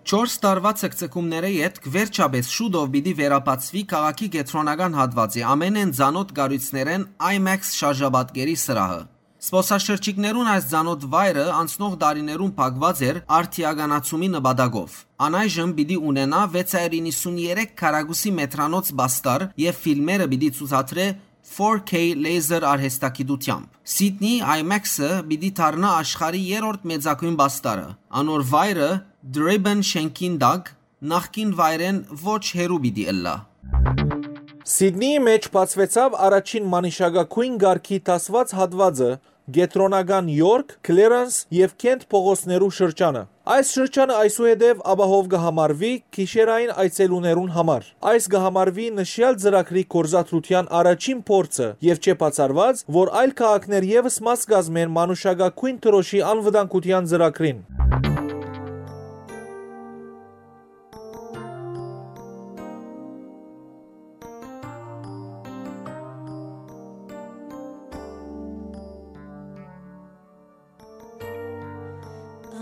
Չորս տարուայ ցկցկումներէ ետք վերջապէս շուտով պիտի վերաբացուի քաղաքի կեդրոնական հատուածի ամենէն ծանօթ կառոյցներէն IMAX շարժապատկերի սրահը։ Զբօսաշրջիկներուն այս ծանօթ վայրը անցնող տարիներուն փակուած էր արդիականացումի նպատակով։ Անայժմ պիտի ունենայ վեց հարիւր իննսուններեք քառակուսի մեթրանոց պաստառ եւ ֆիլմերը պիտի ցուցադրէ four K laser արհեստագիտութեամբ։ Սիդնի IMAX-ը պիտի դառնայ աշխարհի երրորդ մեծագոյն պաստառը։ Անոր վայրը Դրիբեն շենքին տակ նախկին վայրէն ոչ հեռու պիտի ըլլայ։ Սիդնիի մէջ բացուեցաւ առաջին մանիշակագոյն կարգի դասուած հատուածը, Կեդրոնական Յորք, Քլերանս եւ Քենթ փողոցներու շրջանը։ Այս շրջանը այսուհետեւ ապահով կը համարուի գիշերային այցելուներուն համար։ Այս կը համարուի նշեալ ծրագրի գործադրութեան առաջին փորձը եւ չէ բացառուած, որ այլ քաղաքներ եւս մաս կազմեն մանուշակագոյն դրոշի անվտանգութեան ծրագրին։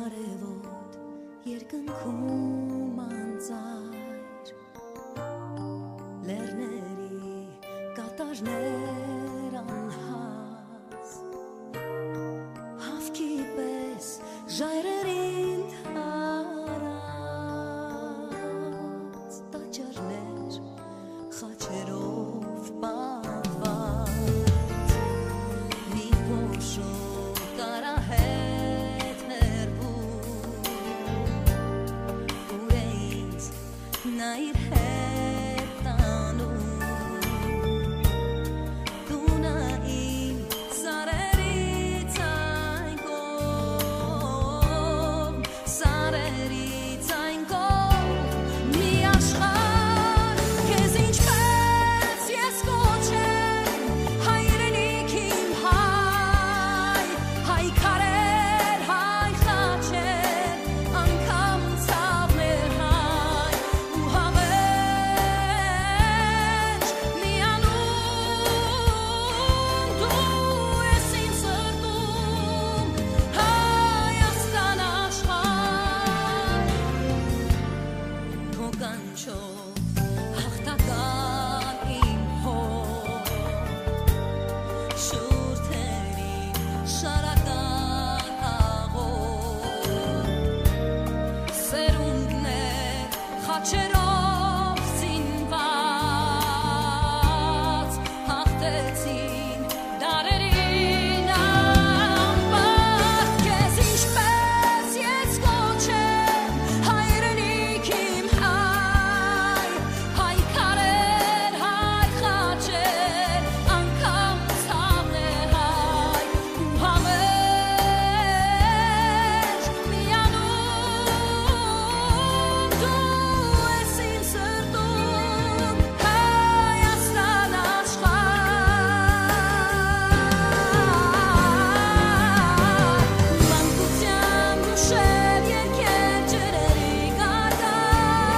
Արեւոտ երկնքում անծայր, լեռների կատարներ անհաս, հաւքի պէս ժայռերին թարած, տաճարներ խաչերով պատված, մի փոշու կարահետ հեռվում, ուր է ինձ նա իր հետ տանում։ Տունը իմ սարերից այն կողմ, սարերից այն կողմ, մի աշխարհ, քեզ ինչպես ես կոչեմ, հայրենիք իմ հայ, հայ քարեր, հայ խաչեր, անգամ ցաւներ հայ, ու համերգ միանում դու ես իմ սրտում, Հայաստան աշխարհ, քո կանչով հաղթական իմ հոր, շուրթերի շարական աղոտ, սերունդներ խաչերով զինված, հաղթեցին դարերին անպատկ, քեզ ինչպես ես կոչեմ, հայրենիք իմ հայ, հայ քարեր, հայ խաչեր, անգամ ցաւներ հայ, ու համերգ միանում դու ես իմ սրտում, Հայաստան աշխարհ։ Մանկության գուշեր, երկեր, ջրերի գագաթ,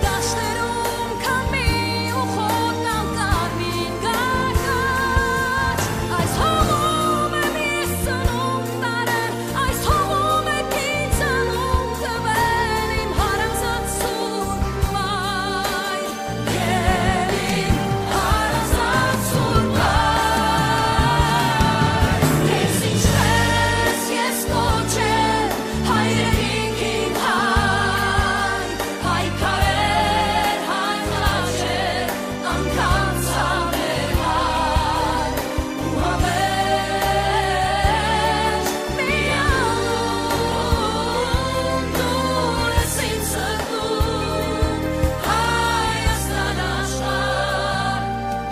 դաշտերում քամի ու խոտան կարմիր գագաթ, այս հողում եմ ես ծնունդ առել, այս հողում է ինձ անուն տվել իմ հարազատ սուրբ մայր։ Քեզ ինչպես ես կոչեմ, հայրենիք իմ հայ, հայ քարեր, հայ խաչեր, անգամ ցաւեր հայ, ու համերգ միանում դու ես իմ սրտում, Հայաստան աշխարհ,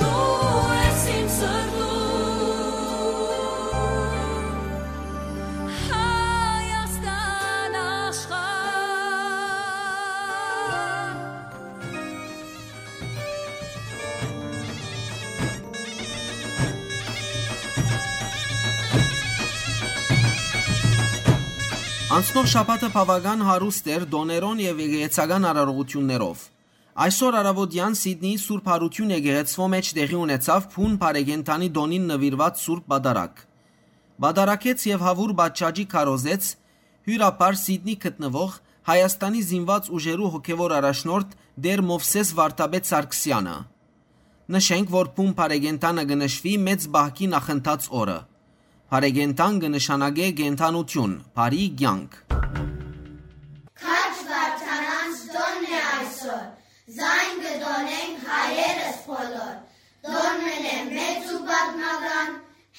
դու ես իմ սրտում, Հայաստան աշխարհ։ Անցնող շաբաթը բաւական հարուստ էր տօներով եւ եկեղեցական արարողութիւններով։ Այսօր առաւօտեան Սիդնիի Սուրբ Յարութիւն եկեղեցւոյ մէջ տեղի ունեցաւ բուն բարեկենդանի տօնին նուիրուած Սուրբ Պատարագ։ Պատարագեց եւ հաւուր պատշաճի քարոզեց հիւրապար Սիդնի գտնուող Հայաստանի զինուած ուժերու հոգեւոր առաջնորդ Տէր Մովսէս Վարդապետ Սարգսեանը։ Նշենք, որ բուն բարեկենդանը կը նշուի մեծ պահքի նախընթաց օրը։ Բարեկենդան կը նշանակէ կենդանութիւն, բարի կեանք։ Քաջ Վարդանանց տօնն է այսօր, զայն կը տօնենք հայերս բոլոր, տօն մըն է մեծ ու պատմական,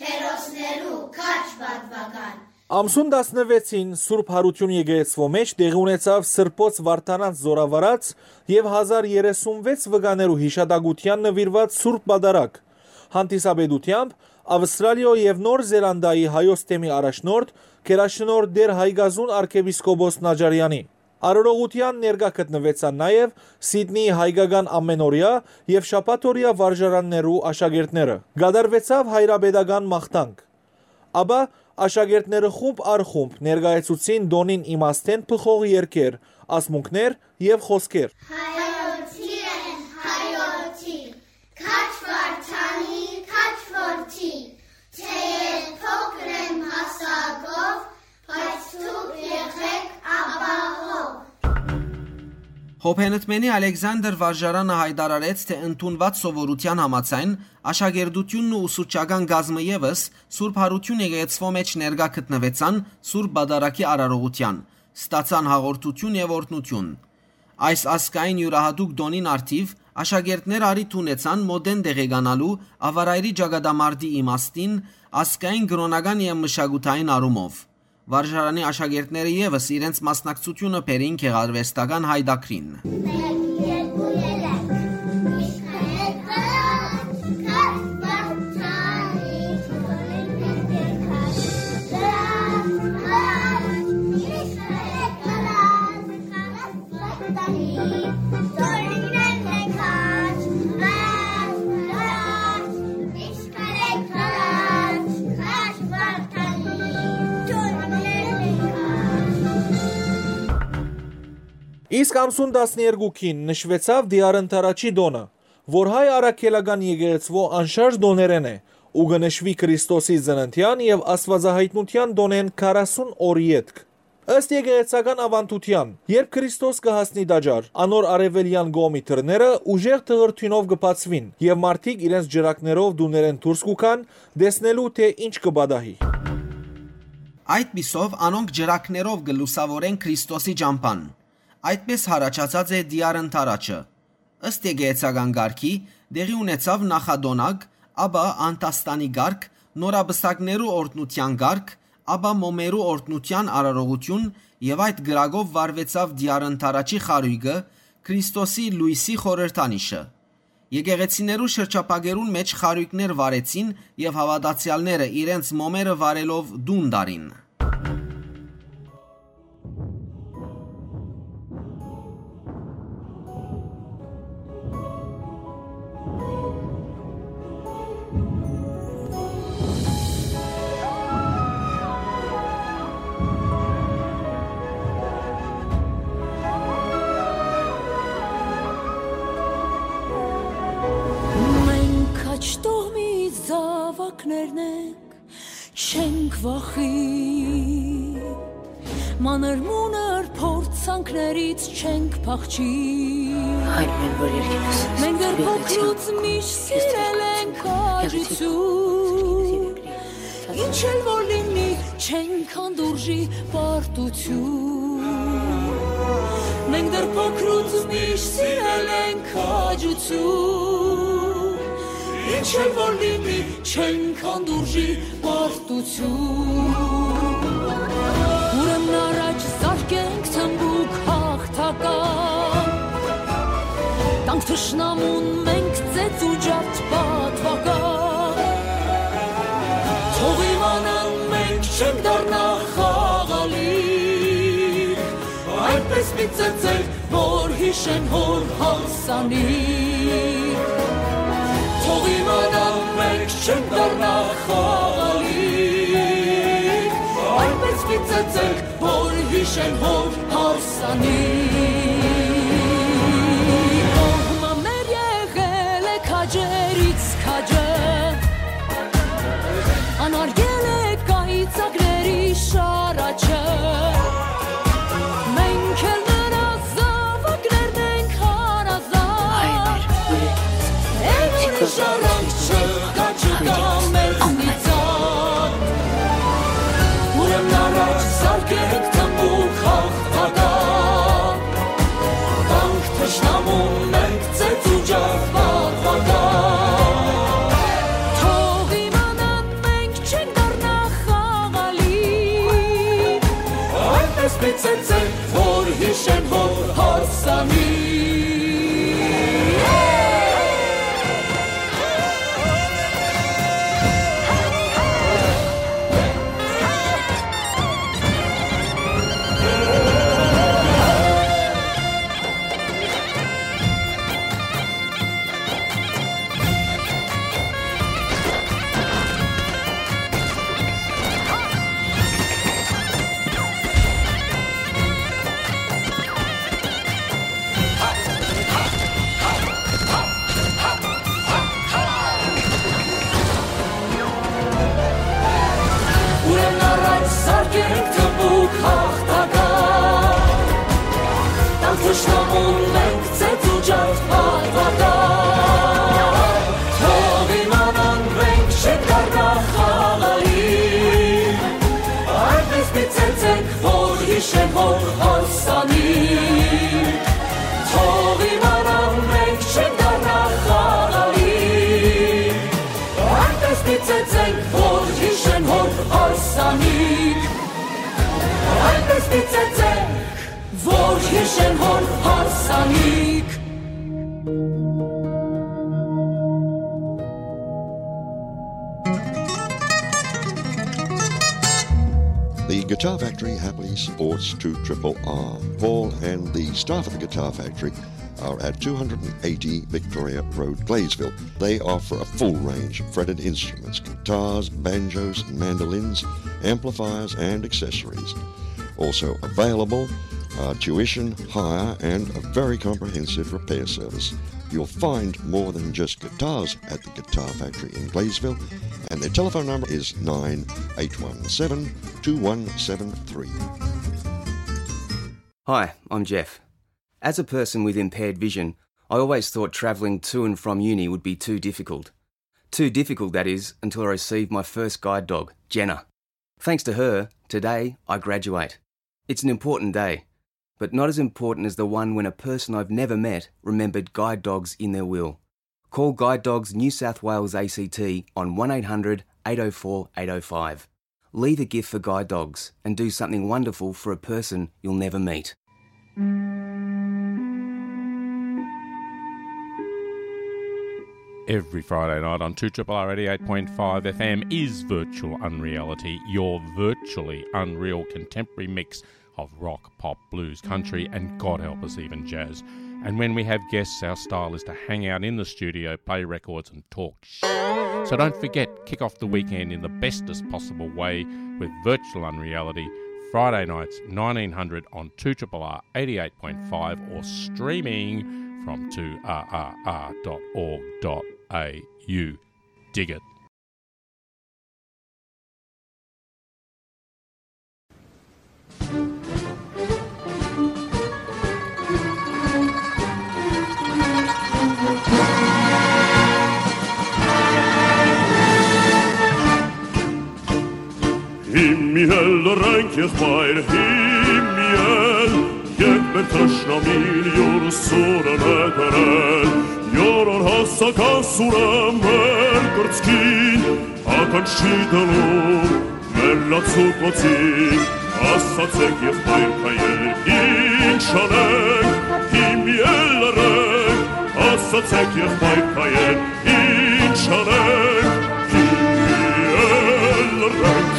հերոսներու քաջ պատմական։ Ամսուն տասնվեցին Սուրբ Յարութիւն եկեղեցւոյ մէջ տեղի ունեցաւ Սրբոց Վարդանանց զօրավարած եւ հազար երեսունվեց վկաներու յիշատակութեան նուիրուած Սուրբ Պատարագ։ Հանդիսապետութեամբ Ավստրալիոյ եւ Նոր Զելանդիայի հայոց թեմի առաջնորդ, գերաշնորհ Տէր Հայկազուն արքեպիսկոպոս Նաճարեանի։ Արարողութեան ներկայ գտնուեցան նաեւ Սիդնիի հայկական ամենօրեայ եւ շաբաթօրեայ վարժարաններու աշակերտները։ Կատարուեցաւ հայրապետական մաղթանք։ Ապա աշակերտները խումբ առ խումբ ներկայացուցին տօնին իմաստէն բխող երգեր, ասմունքներ եւ խօսքեր։ Հայոց իրեն, հայոց իրեն, քաջ Վարդանի, քաջ որդի, թէեւ փոքր եմ հասակով, բայց դուք եղէք ապահով։ Հոբենտմենի Ալեքսանդր վարժարանը յայտարարեց, թէ ընդունուած սովորութեան համաձայն, աշակերտութիւնն ու ուսուցչական կազմը եւս Սուրբ Յարութիւն եկեղեցւոյ մէջ ներկայ գտնուեցան Սուրբ Պատարագի արարողութեան, ստացան հաղորդութիւն եւ օրհնութիւն։ Այս ազգային իւրահատուկ տօնին առթիւ աշակերտները առիթ ունեցան մօտէն տեղեկանալու Աւարայրի ճակատամարտի իմաստին ազգային, կրօնական եւ մշակութային առումով։ Վարժարանի աշակերտները եւս իրենց մասնակցութիւնը բերին գեղարուեստական յայտագրին։ Իսկ ամսուն տասներկուքին նշուեցաւ Տիար Ընդառաջի տօնը, որ հայ առաքելական եկեղեցւոյ անշարժ տօներէն է ու կը նշուի Քրիստոսի ծննդեան եւ աստուածայայտնութեան տօնէն քառասուն օր ետք։ Ըստ եկեղեցական աւանդութեան, երբ Քրիստոս կը հասնի տաճար, անոր արեւելեան կողմի դռները ուժեղ թղրդիւնով կը բացուին եւ մարդիկ իրենց ճրագներով տուներէն դուրս կու գան, տեսնելու թէ ինչ կը պատահի։ Այդպիսով անոնք ճրագներով կը լուսաւորեն Քրիստոսի ճամբան։ Այդպէս յառաջացած է Տիար Ընդառաջը։ Ըստ եկեղեցական կարգի, տեղի ունեցաւ նախատոնակ, ապա անդաստանի կարգ, նորապսակներու օրհնութեան կարգ, ապա մոմերու օրհնութեան արարողութիւն եւ այդ կրակով վառուեցաւ Տիար Ընդառաջի խարոյկը, Քրիստոսի լոյսի խորհրդանիշը։ Եկեղեցիներու շրջափակերուն մէջ խարոյկներ վառեցին եւ հաւատացեալները իրենց մոմերը վառելով տուն տարին։ Մենք քաջ տոհմի զաւակներն ենք, չենք վախի, մանր-մունր փորձանքներից չենք փախչի։ Այն մեն որ երկինս Մենք դեռ փոքրուց միշտ սիրել ենք քաջություն, ինչ էլ որ լինի, չենք հանդուրժի պարտություն։ Մենք դեռ փոքրուց միշտ սիրել ենք քաջություն, ինչ էլ որ լինի, չենք հանդուրժի պարտություն։ Ուրեմն առաջ զարկենք թմբուկ հաղթական, տանք թշնամուն մենք ծեծ ու ջարդ պատվական։ Թող իմանան մենք չենք դառնա խաղալի, այդպես մի ծեծենք, որ յիշեն հոր հարսանիք։ Թող իմանան մենք չենք դառնա խաղալի, այնպես մի ծեծենք, որ յիշեն հոր հարսանիք։ Կողմը մեր եղել է քաջերից քաջը, անարգել է կայծակների շարաչը։ Մենք էլ նրա զաւակներն ենք հարազատ։ Ուրիշ առանց չկա, չկա մեզնից ան։ Ուրեմն առաջ զարկենք թմբուկ հաղթական, տանք թշնամուն մենք ծեծ ու ջարդ պատվական։ Թող իմանան մենք չենք դառնա խաղալի, այնպես մի ծեծենք, որ յիշեն հոր հարսանիք։ Որ հիշեն հոն հարսանիք։ The Guitar Factory happily supports two triple R. Paul and the staff of the Guitar Factory are at two hundred and eighty Victoria Road, Gladesville. They offer a full range of fretted instruments, guitars, banjos, mandolins, amplifiers, and accessories. Also available are tuition, hire, and a very comprehensive repair service. You'll find more than just guitars at the Guitar Factory in Gladesville, and their telephone number is nine eight one seven two one seven three. Hi, I'm Jeff. As a person with impaired vision, I always thought travelling to and from uni would be too difficult. Too difficult, that is, until I received my first guide dog, Jenna. Thanks to her, today I graduate. It's an important day, but not as important as the one when a person I've never met remembered guide dogs in their will. Call Guide Dogs New South Wales A C T on one eight hundred eight oh four eight oh five. Leave a gift for Guide Dogs and do something wonderful for a person you'll never meet. Every Friday night on two triple R eighty-eight point five F M is Virtual Unreality, your virtually unreal contemporary mix of rock, pop, blues, country, and God help us, even jazz. And when we have guests, our style is to hang out in the studio, play records, and talk sh-. So don't forget, kick off the weekend in the bestest possible way with Virtual Unreality, Friday nights, nineteen hundred on two triple R eighty-eight point five or streaming from two R R R dot org dot A U. Dig it. Հիմի էլ լռենք, եղբայր, հիմի էլ, երբ մեր թշնամին յուր սուրը նետել, յորոր հասական սուրը մեր կրծքին, ականջ չի դնում մեր լացուկոցին, ասացեք, եղբայր քայեր, ինչ անենք, հիմի էլ լռենք, ասացեք, եղբայր քայեր, ինչ անենք, հիմի էլ լռենք։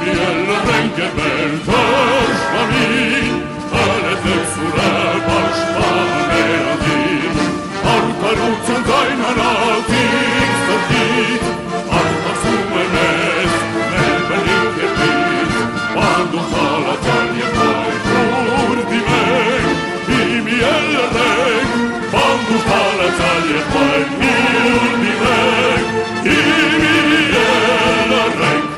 Հիմի էլ լռենք, երբ մեր թշնամին, ալեզեք սուրը պաշտպան մեր անձին, արդարութեան ձայն հանած իր սրտից, արտասում է մեզ մեր բնիկ երկրից, պանդոն թալացան և պայքուր դիմենք, հիմի էլ լռենք, պանդոն թալացան և պայքուր դիմենք, հիմի էլ լռենք։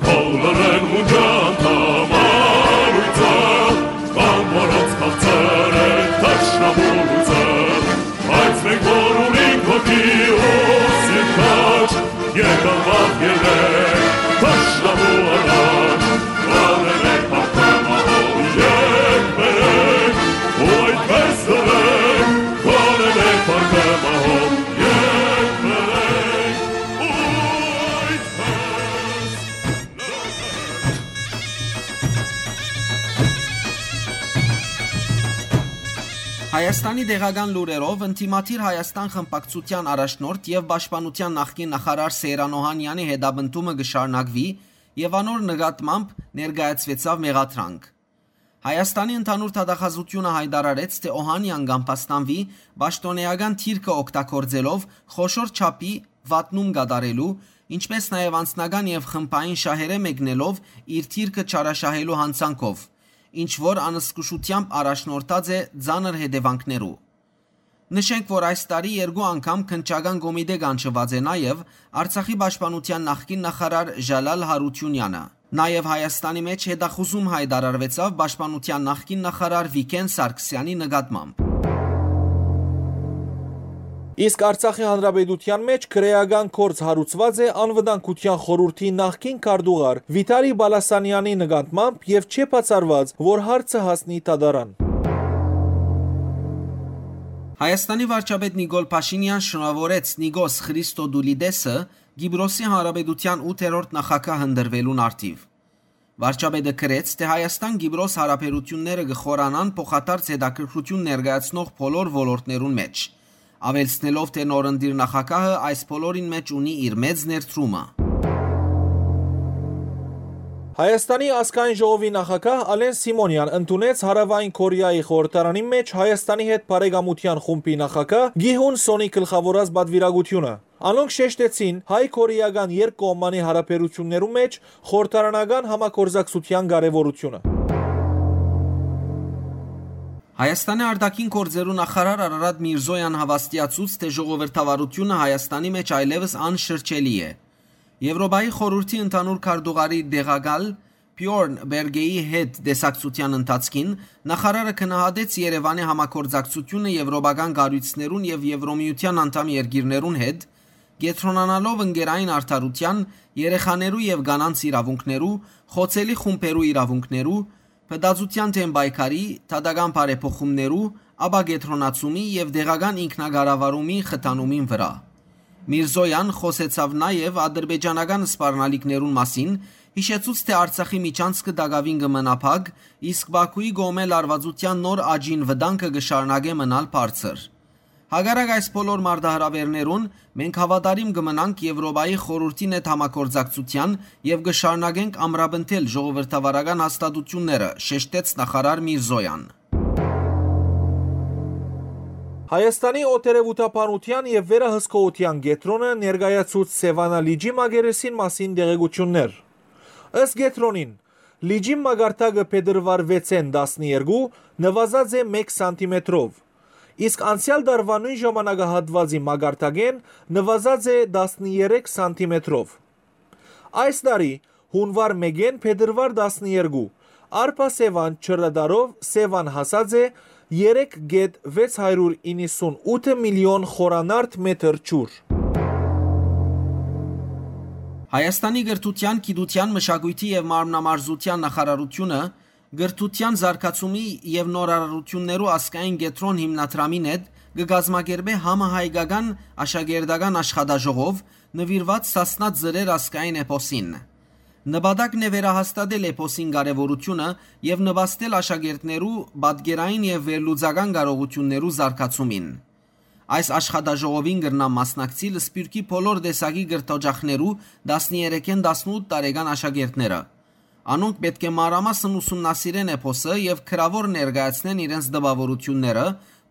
Բոլորն մունջան թամարույցը, կամ որոնց քաղցր է թշնամու լույսը, բայց մենք որ ունենք հոգի ու սիրտ քաջ, եկան վաղ ելեք թշնամու առաջ, գոնե մեկ փառքը մահով եք բերեք, ու այդպես լռեք, գոնե մեկ փառքը մահով եք բերեք, ու այդպես լռեք։ Հայաստանի տեղական լուրերով, ընդդիմադիր Հայաստան խմբակցության առաջնորդ եւ պաշտպանության նախկին նախարար Սեյրան Օհանյանի հետապնդումը կը շարունակուի եւ անոր նկատմամբ ներկայացուեցաւ մեղադրանք։ Հայաստանի ընդհանուր դատախազութիւնը յայտարարեց, թէ Օհանյան կ'ամբաստանուի պաշտօնէական դիրքը օգտագործելով խոշոր չափի վատնում կատարելու, ինչպէս նաեւ անձնական եւ խմբային շահերէ մեկնելով իր դիրքը չարաշահելու յանցանքով, ինչ որ անզգուշութեամբ առաջնորդած է ծանր հետեւանքներու։ Նշենք, որ այս տարի երկու անգամ քննչական կոմիտէ կանչուած է նաեւ Արցախի պաշտպանության նախկին նախարար Ժալալ Հարությունյանը։ Նաեւ Հայաստանի մէջ հետախուզում յայտարարուեցաւ պաշտպանության նախկին նախարար Վիգէն Սարգսեանի նկատմամբ։ Իսկ Արցախի Հանրապետութեան մէջ քրէական գործ հարուցուած է Անվտանգութեան խորհուրդի նախկին քարտուղար Վիտալի Բալասանեանի նկատմամբ եւ չէ բացառուած, որ հարցը հասնի դատարան։ Հայաստանի վարչապետ Նիկոլ Փաշինեան շնորհաւորեց Նիկոս Խրիստոդուլիդեսը, Կիպրոսի Հանրապետութեան ութերորդ նախագահ ընտրուելուն առթիւ։ Վարչապետը գրեց, թէ Հայաստան-Կիպրոս յարաբերութիւնները կը խորանան փոխադարձ հետաքրքրութիւն ներկայացնող բոլոր ոլորտներուն մէջ, աւելցնելով, թէ նորընտիր նախագահը այս բոլորին մէջ ունի իր մեծ ներդրումը։ Հայաստանի ազգային ժողովի նախագահ Ալեն Սիմոնեան ընդունեց Հարաւային Կորեայի խորհրդարանի մէջ Հայաստանի հետ բարեկամութեան խումբի նախագահ Գիհուն Սոնի գլխաւորած պատուիրակութիւնը։ Անոնք շեշտեցին հայ-կորեական երկկողմանի հարաբերութիւններու մէջ խորհրդարանական համագործակցութեան կարեւորութիւնը։ Հայաստանի արտաքին գործերու նախարար Արարատ Միրզոյան հաւաստիացուց, թէ ժողովրդավարութիւնը Հայաստանի մէջ այլեւս անշրջելի է։ Եւրոպայի խորհուրդի ընդհանուր քարտուղարի տեղակալ Բիորն Բերգեի հետ տեսակցութեան ընթացքին նախարարը գնահատեց Երեւանի համագործակցութիւնը եվրոպական կառոյցներուն եւ Եվրոմիութեան անդամ երկիրներուն հետ, կեդրոնանալով ընկերային արդարութեան, երեխաներու եւ կանանց իրաւունքներու, խոցելի խումբերու իրաւունքներու, փտածութեան դէմ պայքարի, դատական բարեփոխումներու, ապակեդրոնացումի եւ տեղական ինքնակառավարումի խթանումին վրայ։ Միրզոյան խօսեցաւ նաեւ ադրբեջանական սպառնալիքներուն մասին, յիշեցուց, թէ Արցախի միջանցքը տակաւին կը մնայ փակ, իսկ Բաքուի կողմէ լարուածութեան նոր աճին վտանգը կը շարունակէ մնալ բարձր։ Հակառակ այս բոլոր մարտահրաւէրներուն, մենք հաւատարիմ կը մնանք Եվրոպայի խորհուրդին հետ համագործակցութեան եւ կը շարունակենք ամրապնդել ժողովրդավարական հաստատութիւնները, շեշտեց նախարար Միրզոյան։ Հայաստանի օտերեւութաբանութեան եւ վերահսկողութեան կեդրոնը ներկայացուց Սեւանա լիճի մակերեսին մասին տեղեկութիւններ։ Ըստ կեդրոնին, լիճին մակարդակը փետրուար վեցէն տասներկու նուազած է մէկ սանտիմետրով, իսկ անցեալ տարուայ նոյն ժամանակահատուածի մակարդակէն նուազած է տասներեք սանտիմետրով։ Այս տարի, յունուար մէկէն փետրուար տասներկու, Արփա Սեւան ջրատարով Սեւան հասած է երեք կետ վեց հարիւր իննսուն ութ միլիոն խորանարդ մեթր ջուր։ Հայաստանի կրթութեան, գիտութեան, մշակոյթի եւ մարմնամարզութեան նախարարութիւնը կրթութեան զարգացումի եւ նորարարութիւններու ազգային կեդրոն հիմնադրամին հետ կը կազմակերպէ համահայկական աշակերտական աշխատաժողով նուիրուած Սասնա Ձրեր ազգային էպոսին։ Նպատակն է վերահաստատել էպոսին կարեւորութիւնը եւ նպաստել աշակերտներու պատկերային եւ վերլուծական կարողութիւններու զարգացումին։ Այս աշխատաժողովին կրնան մասնակցիլ Սփիւռքի բոլոր տեսակի կրթօջախներու տասներեքէն տասնութ տարեկան աշակերտները։ Անոնք պէտք է մանրամասն ուսումնասիրեն էպոսը եւ գրաւոր ներկայացնեն իրենց տպաւորութիւնները,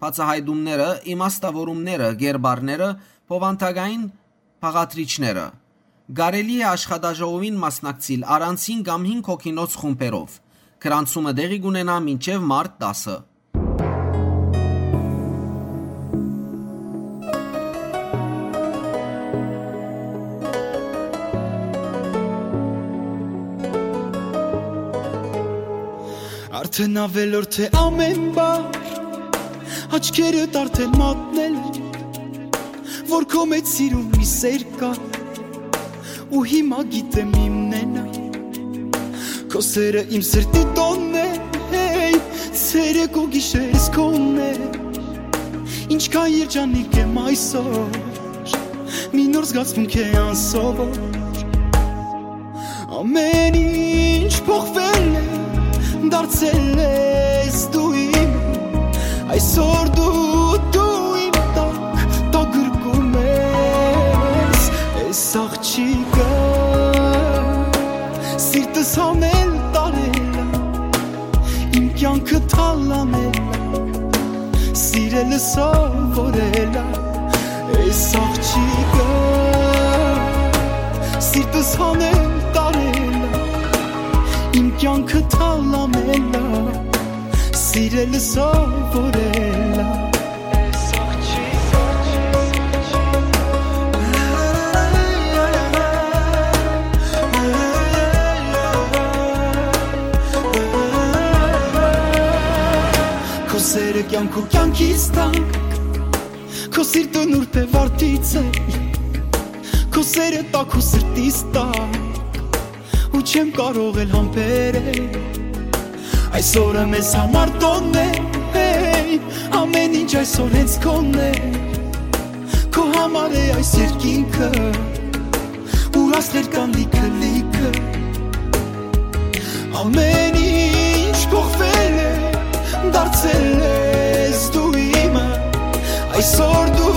բացայայտումները, իմաստաւորումները, կերպարները, բովանդակային բաղադրիչները։ Կարելի է աշխատաժողովին մասնակցիլ առանձին կամ հինգ հոգինոց խումբերով։ Գրանցումը տեղի կունենայ մինչեւ մարտ տասը։ Արդեն ավելորդ է ամեն բան, աչքերդ արդեն մատնել, որ քո մեջ սիրուն մի սեր կա, ու հիմա գիտեմ իմն է նա։ Քո սերը իմ սրտի տոնն է, հեյ, ցերեկ ու գիշերս քոնն է։ Ինչքան երջանիկ եմ այսօր, մի նոր զգացմունք է անսովոր։ Ամեն ինչ փոխվել է, դարձել ես դու իմ, այսօր դու, դու իմ տակ, տագրկում ես, այս աղջիկը սիրտս հանել տարել ա, իմ կյանքը թալանել ա, սիրելը սովորել ա, այս աղջիկը սիրտս հանել տարել ա, իմ կյանքը թալանել ա, սիրելը սովորել ա։ Քո սերը կյանք ու կյանքիս տակ, Քո սիրտը նուրբ է վարդից է, քո սերը տաք ու սրտիս տակ, ու չեմ կարող էլ համբերել։ Այսօրը մեզ համար տոնն է, հեյ, ամեն ինչ այսօր հենց քոնն է, քո համար է այս երկինքը, ու աստղեր կան լիքը, լիքը։ Ամեն ինչ փոխվել է, դարձել ես դու իմը, այսօր դու,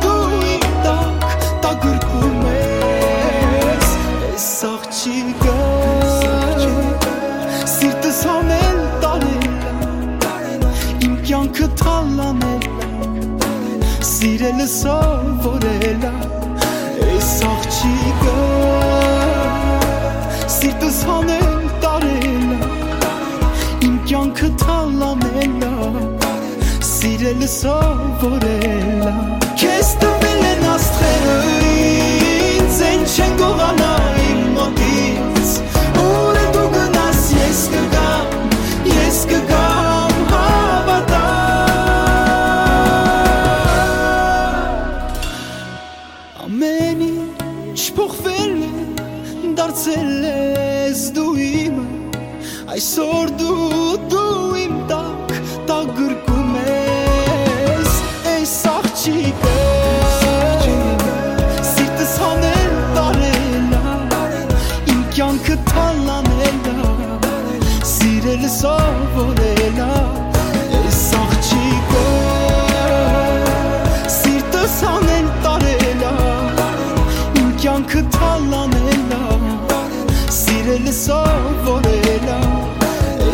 դու իմ տակ, տակ գրկում ես, ես աղջիկը, սիրտս հանել տարել, իմ կյանքը թալանել, սիրելը սովորել ա, ես աղջիկը, սիրտս հանել տարել ա, իմ կյանքը թալանել ա, սիրելը սովորել ա։ Քեզ տվել են աստղերը ինձ, են չեն գողանա իմ մոտից, ուր դու գնաս, ես կգամ, ես կգամ, հավատա։ Ամեն ինչ փոխվել է, դարձել ես դու իմը, այսօր դու, դու իմ տակ, տակ գրկում ես, այս աղջիկը, սիրտս հանել տարել ա, իմ կյանքը թալանել ա, սիրել սովորել ա, ես աղջիկը, սիրտս հանել տարել ա, իմ կյանքը թալանել ա, սիրել սովորել ա,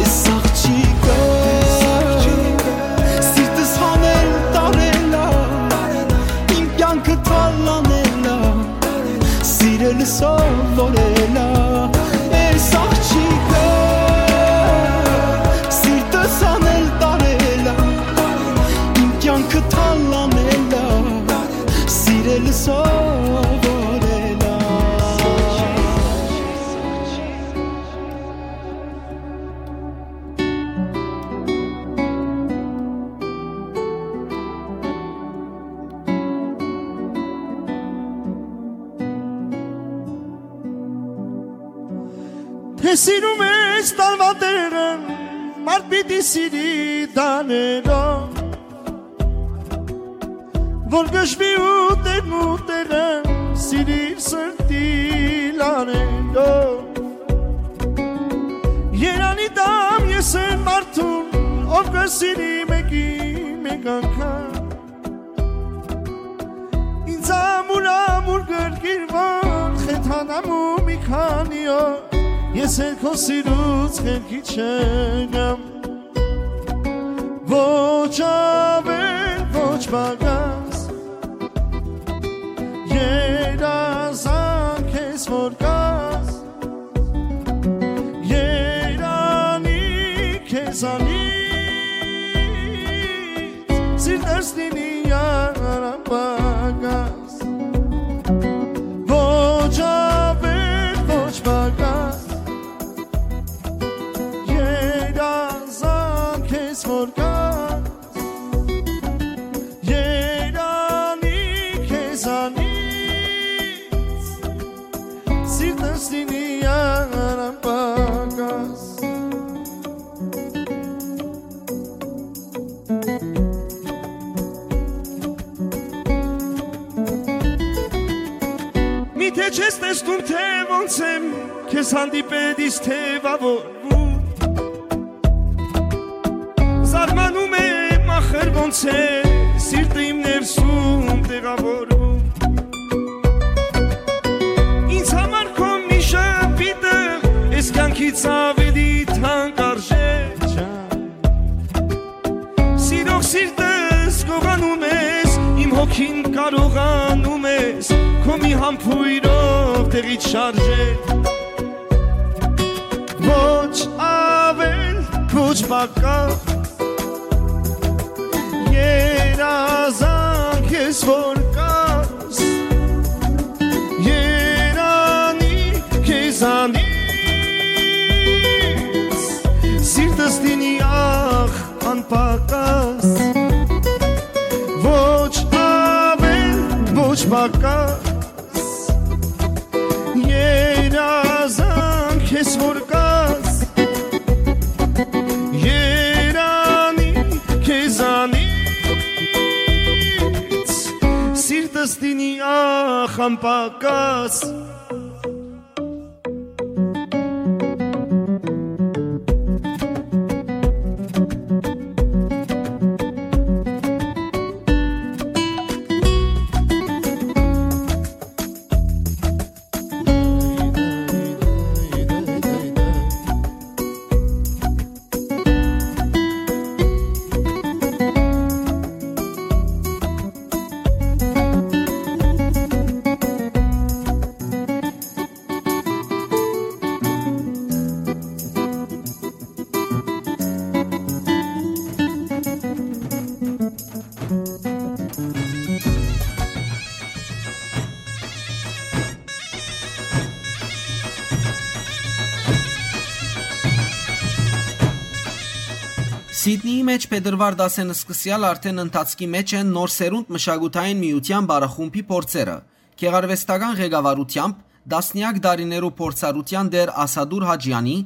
ես աղջիկը, սիրտս հանել տարել ա, իմ կյանքը թալանել ա, սիրել սովորել ա, ես աղջիկը, սիրտս հանել տարել ա, իմ կյանքը թալանել ա, սիրել սովորել ա։ Թէ սիրում ես տարուա տեղը, մարդ պիտի սիրի տաներով, որ գժվի ու տեղն ու տեղը, սիրիր սրտի լաներով։ Երանի տամ ես այն մարդուն, ով կը սիրի մեկի մեկ անգամ, ինձ ամուր, ամուր գրկիր, որ խեթանամ ու մի քանի օր ես էլ քո սիրուց խելքի չգամ։ Ոչ ավել, ոչ պակաս, երազանք ես որ կաս, երանի քեզանից, սիրտս լինի անպակաս։ Ոչ ավել, ոչ պակաս, երազանք ես որ կաս, երանի քեզանից, սիրտս լինի անպակաս։ Միթե չես տեսնում, թե ոնց եմ քեզ հանդիպել, իսկ թեւավորվում։ Զարմանում եմ, ախր ոնց է սիրտը իմ ներսում տեղավորվում։ Ինձ համար քո մի ժպիտը էս կյանքից ավելի թանկ արժե չան։ Սիրող սիրտս գողանում ես, իմ հոգին կարողանում ես քո մի համբույրով տեղից շարժել։ Ոչ ավել, ոչ պակաս, երազանք ես որ կաս, երանի քեզանից, սիրտս լինի ախ անպակաս, ոչ Պակաս, երազանք ես որ կաս, երանի քեզանից, սիրտս դինի ախ անպակաս։ Սիդնիի մէջ փետրուար տասը սկսեալ արդէն ընթացքի մէջ են Նոր սերունդ մշակութային միութեան պարախումբի փորձերը։ Գեղարուեստական ղեկավարութեամբ տասնեակ տարիներու փորձառութեան տէր Ասադուր Հաճեանի,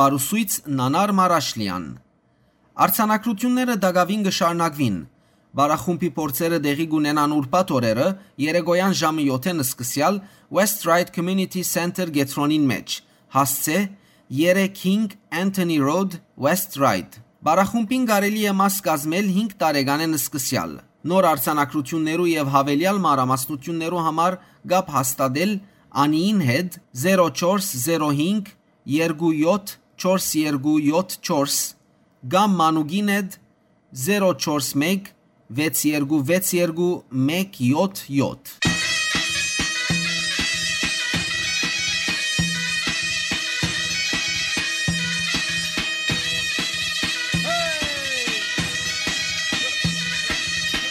պարուսոյց Նանար Մարաշլեան։ Արձանագրութիւնները տակաւին կը շարունակուին։ Պարախումբի փորձերը տեղի կունենան ուրբաթ օրերը, երեկոյան ժամը եօթէն սկսեալ West Ryde Community Center կեդրոնին մէջ, հասցէ երեք հինգ Anthony Road, West Ryde։ Պարախումբին կարելի է մաս կազմել հինգ տարեկանէն սկսեալ։ Նոր արձանագրութիւններու եւ յաւելեալ մանրամասնութիւններու համար կապ հաստատել Անիին հետ զերո չորս զերո հինգ երկու յոթ չորս երկու յոթ չորս կամ Մանուկին հետ զերո չորս մեկ վեց երկու վեց երկու մեկ յոթ յոթ։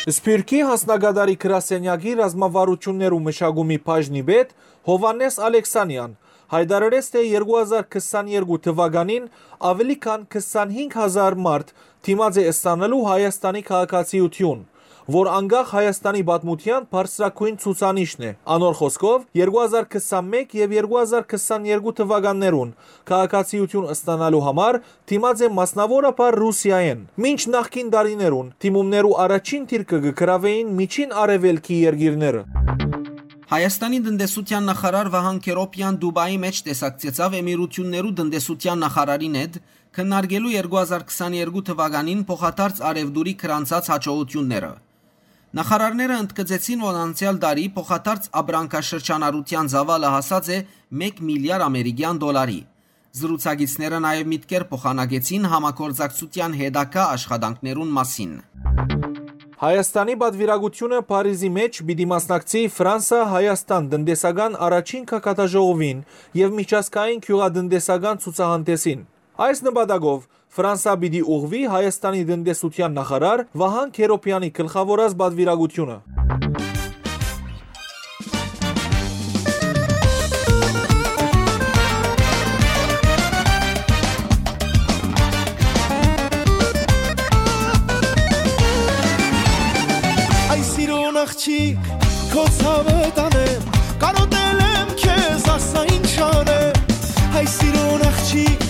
Սփիւռքի հանձնակատարի գրասենյակի ռազմավարութիւններու մշակումի բաժնի պետ Յովհաննէս Ալեքսանեան յայտարարեց, թէ երկու հազար քսաներկու թուականին աւելի քան քսանհինգ հազար մարդ դիմած է ստանալու Հայաստանի քաղաքացիութիւն, որ անկախ Հայաստանի պատմութեան բարձրագոյն ցուցանիշն է։ Անոր խօսքով, երկու հազար քսանմեկ եւ երկու հազար քսաներկու թուականներուն քաղաքացիութիւն ստանալու համար դիմած է մասնաւորաբար Ռուսիայէն։ Մինչ նախկին տարիներուն դիմումներու առաջին դիրքը կը գրաւէին Միջին Արեւելքի երկիրները։ Հայաստանի տնտեսութեան նախարար Վահան Քերոպեան Դուբայի մէջ տեսակցեցաւ Էմիրութիւններու տնտեսութեան նախարարին հետ, քննարկելու երկու հազար քսաներկու թուականին փոխադարձ առեւտուրի գրանցած յաջողութիւնները։ Նախարարները ընդգծեցին, որ անցեալ տարի փոխադարձ ապրանքաշրջանառութեան ծաւալը հասած է մէկ միլիար ամերիկեան դոլարի։ Զրուցակիցները նաեւ միտքեր փոխանակեցին համագործակցութեան հետագայ աշխատանքներուն մասին։ Հայաստանի պատուիրակութիւնը Փարիզի մէջ պիտի մասնակցի Ֆրանսա-Հայաստան տնտեսական առաջին գագաթաժողովին եւ միջազգային գիւղատնտեսական ցուցահանդէսին։ Այս նպատակով Ֆրանսա պիտի ուղղուի Հայաստանի տնտեսութեան նախարար Վահան Քերոպեանի գլխաւորած պատուիրակութիւնը։ Այ սիրուն աղջիկ, քո ցաւը տանեմ, կարոտել եմ քեզ, ասա ինչ անեմ։ Այ սիրուն աղջիկ,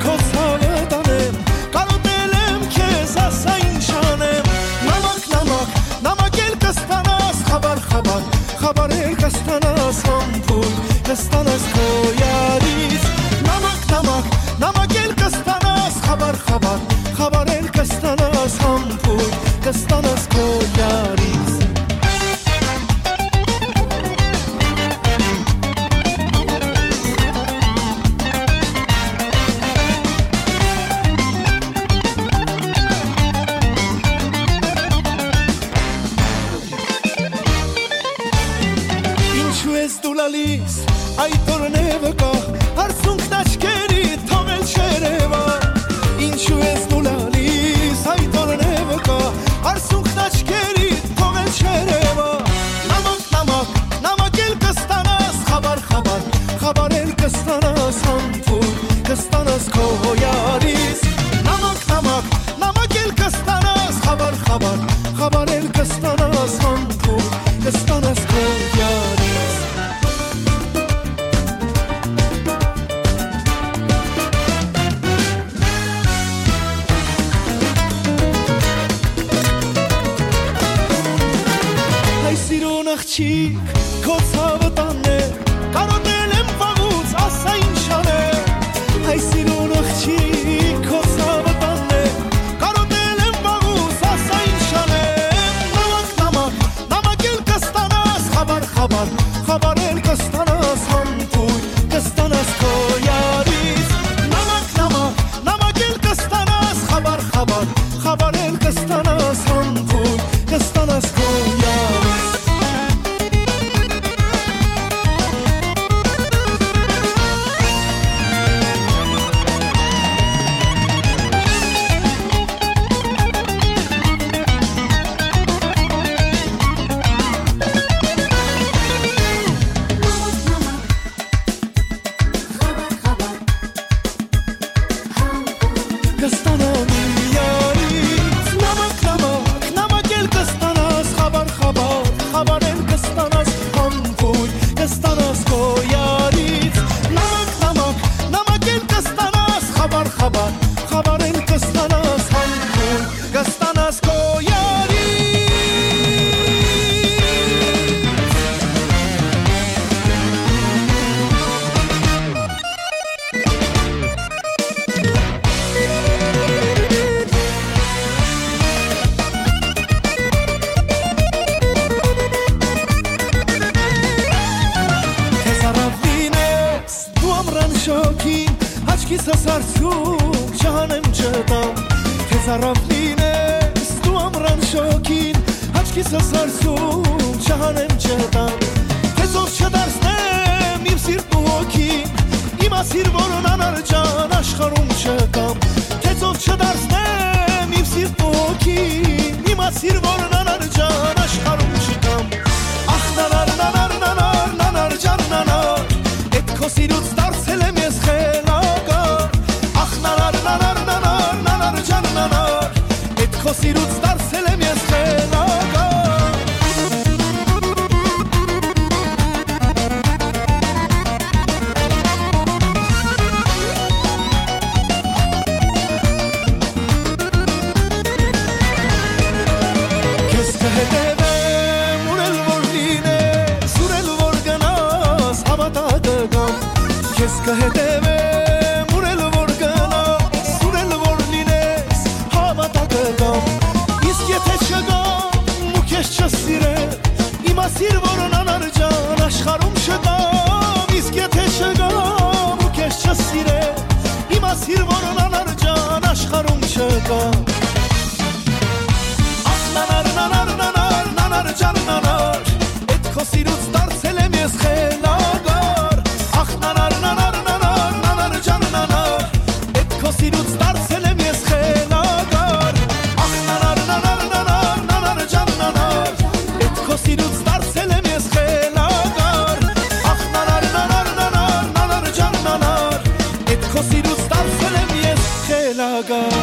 քո ցաւը տանեմ, կարոտել եմ քեզ, ասա ինչ անեմ։ Նամակ, նամակ, նամակ էլ կստանաս, խաբար, խաբար, խաբար էլ կստանաս, համբույր կստանաս քո յարից։ Նամակ, նամակ, նամակ էլ կստանաս, խաբար, խաբար, խաբար էլ կստանաս, համբույր կստանաս քո յարից։ Ինչու ես դու լալիս, այդ օրն է վկա, արցունքն աչքերի թողել չերևա։ Ինչու ես դու լալիս, այդ օրն է վկա, արցունքն աչքերի թողել չերևա։ Նամակ, նամակ, նամակ էլ կստանաս, խաբար, խաբար, խաբար էլ կստանաս, համբույր կստանաս քո յարից։ Նամակ, նամակ, նամակ էլ կստանաս, խաբար, խաբար, խաբար էլ կստանաս, համբույր կստանաս քո Կիսս հարցում չհանեմ չտամ, թե ծարաւ լինես դու ամրան շոգին, հաճ կիսս հարցում չհանեմ չտամ, թե ծով չդարձնեմ իմ սիրտն ու հոգին, իմացիր, որ անանար ջան աշխարհում չկամ, թե ծով չդարձնեմ իմ սիրտն ու հոգին, իմացիր, որ անանար ջան աշխարհում չկամ, ախ նանար, նանար, նանար, նանար ջան, նանար, էդ քո սիրուց դարձել եմ ես խելագար, ախ նանար, նանար, նանար, նանար ջան, նանար, էդ քո սիրուց դարձել եմ ես խելագար։ Քեզ կհետևեմ, ուր էլ որ լինես, ուր էլ որ գնաս, հավատա կգամ։ Քեզ կհետևեմ, ուր էլ որ գնաս, ուր էլ որ լինես, հավատա կգամ։ Իսկ եթե չգամ ու քեզ չսիրեմ, իմացիր, որ անանար ջան աշխարհում չկամ։ Իսկ եթե չգամ ու քեզ չսիրեմ, իմացիր, որ անանար ջան աշխարհում չկամ։ Ախ նանար, նանար, նանար, նանար ջան, նանար, էդ քո սիրուց դարձել եմ ես խելագար։ Ախ նանար, նանար, նանար, նանար ջան, նանար, էդ քո սիրուց դարձել եմ ես խելագար։ Ախ նանար, նանար, նանար, նանար ջան, նանար, էդ քո սիրուց դարձել եմ ես խելագար։ Ախ նանար, նանար, նանար, նանար ջան, նանար, էդ քո սիրուց դարձել եմ ես խելագար։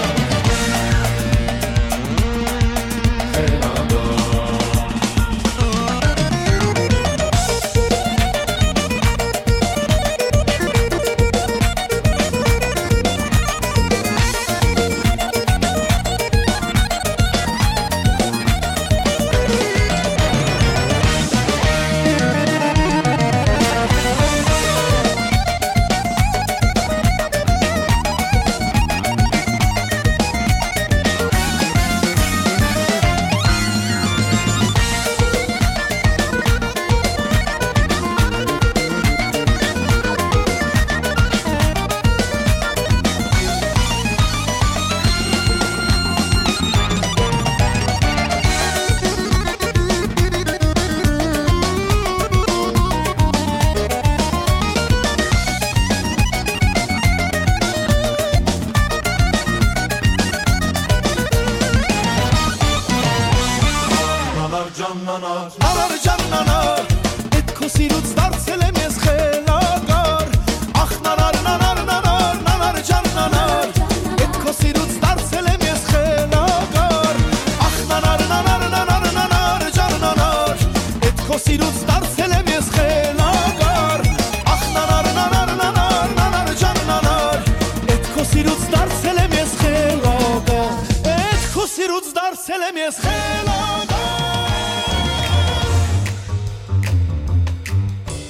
Նանար ջան, նանար, նանար ջան, նանար, էդ քո սիրուց դարձել եմ ես խելագար։ Ախ նանար, նանար, նանար, նանար ջան, նանար, էդ քո սիրուց դարձել եմ ես խելագար։ Ախ նանար, նանար, նանար, նանար ջան, նանար, էդ քո սիրուց դարձել եմ ես խելագար։ Ախ նանար, նանար, նանար, նանար ջան, նանար, էդ քո սիրուց դարձել եմ ես խելագար։ Էդ քո սիրուց դարձել եմ ես խելագար։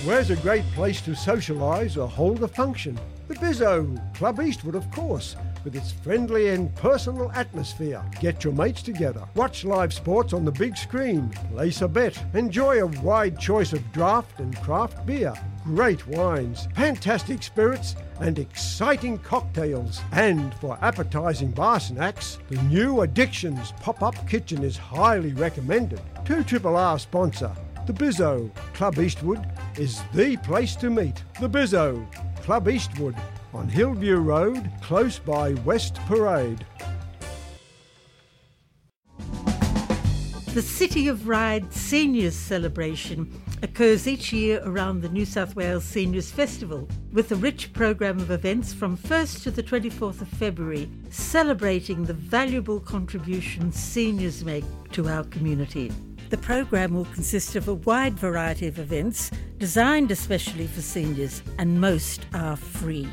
Where's a great place to socialise or hold a function? The Bizzo, Club Eastwood, of course, with its friendly and personal atmosphere. Get your mates together, watch live sports on the big screen, place a bet, enjoy a wide choice of draft and craft beer, great wines, fantastic spirits, and exciting cocktails. And for appetising bar snacks, the new Addictions pop-up kitchen is highly recommended. Two Triple R sponsor, the Bizzo. Club Eastwood is the place to meet. The Bizzo, Club Eastwood, on Hillview Road, close by West Parade. The City of Ryde Seniors Celebration occurs each year around the New South Wales Seniors Festival, with a rich programme of events from first to the twenty-fourth of February, celebrating the valuable contribution seniors make to our community. The programme will consist of a wide variety of events designed especially for seniors, and most are free.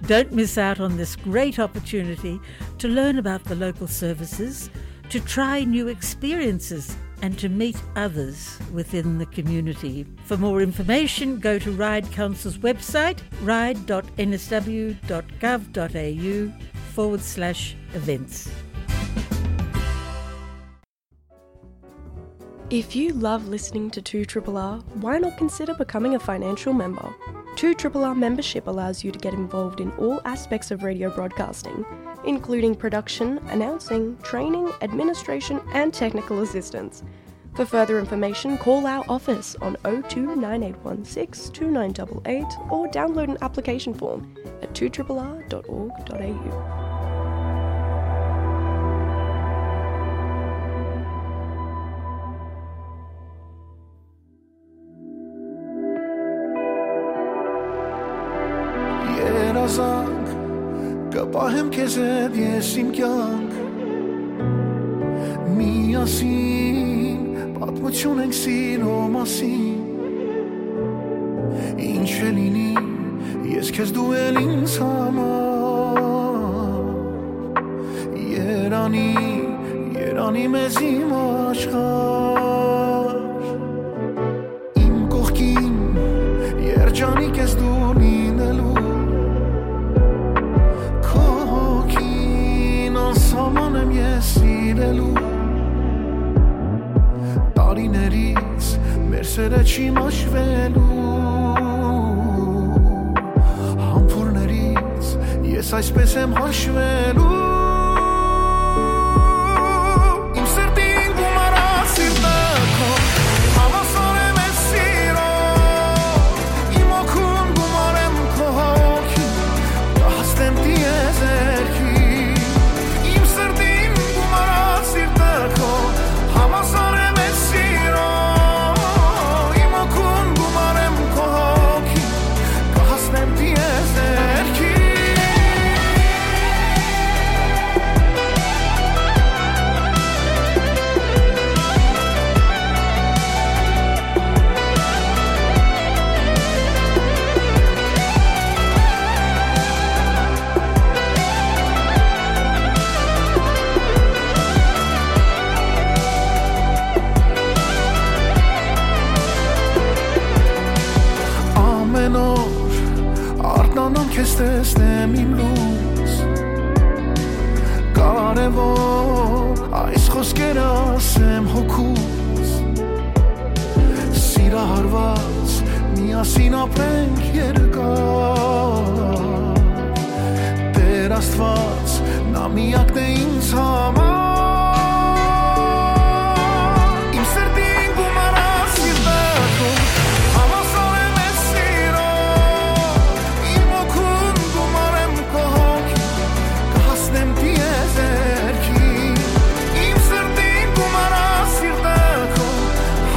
Don't miss out on this great opportunity to learn about the local services, to try new experiences, and to meet others within the community. For more information, go to Ryde Council's website, ryde dot n s w dot gov dot a u forward slash events. If you love listening to two triple R, why not consider becoming a financial member? Two Triple R membership allows you to get involved in all aspects of radio broadcasting, including production, announcing, training, administration, and technical assistance. For further information, call our office on oh two nine eight one six two nine eight eight or download an application form at two triple r dot org dot a u. Երազանք, կը պահեմ քեզ հետ ես իմ կյանք։ Միասին պատմություն ենք սիրո մասին։ Ինչ է լինի, ես քեզ դու էլ ինձ համար։ Երանի, երանի մեզ իմ աշխարհ։ Իմ կողքին երջանիկ ես դու լինելու, քո հոգին անսահման եմ ես սիրելու։ Տարիներից մեր սերը չի մաշվելու, համբուրներից ես այսպես եմ հաշվելու։ Իմ սրտին գումարած սիրտը քո, հավասար եմ ես սիրո, իմ օգուն գումարեմ քո հոգին, կհասնեմ տիեզերքի։ Իմ սրտին գումարած սիրտը քո, հավասար եմ ես սիրո, իմ օգուն գումարեմ քո հոգին, կհասնեմ տիեզերքի։ Ամեն օր արթնանամ քեզ տեսնեմ իմ լույս, կարևոր այս խոսքերը ասեմ հոգուս։ Սիրահարված միասին ապրենք երկար, Տեր Աստված, նա միակն է ինձ համար։ Իմ սրտին գումարած սիրտը քո, հավասար եմ ես սիրո, իմ օգուն գումարեմ քո հոգին, կհասնեմ տիեզերքի։ Իմ սրտին գումարած սիրտը քո,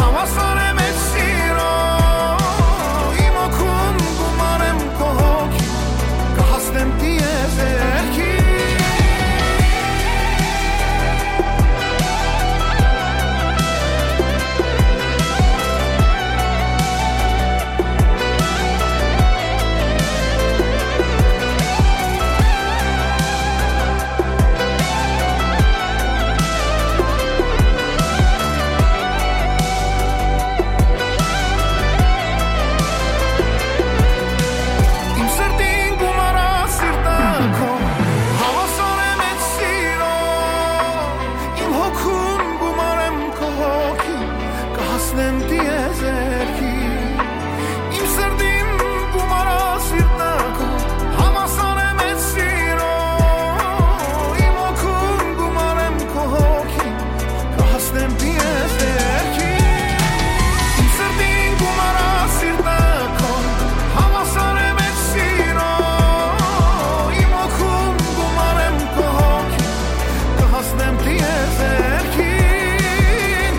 հավասար եմ ես սիրո, իմ օգուն գումարեմ քո հոգին, կհասնեմ տիեզերքի։ Իմ սրտին գումարած սիրտը քո, հավասար եմ ես սիրո, իմ հոգուն գումարեմ քո հոգին, կհասնեմ տիեզերքի։ Իմ սրտին գումարած սիրտը քո, հավասար եմ ես սիրո, իմ օգուն գումարեմ քո հոգին, կհասնեմ տիեզերքի։ Իմ սրտին գումարած սիրտը քո, հավասար եմ ես սիրո, իմ օգուն գումարեմ քո հոգին, կհասնեմ տիեզերքին։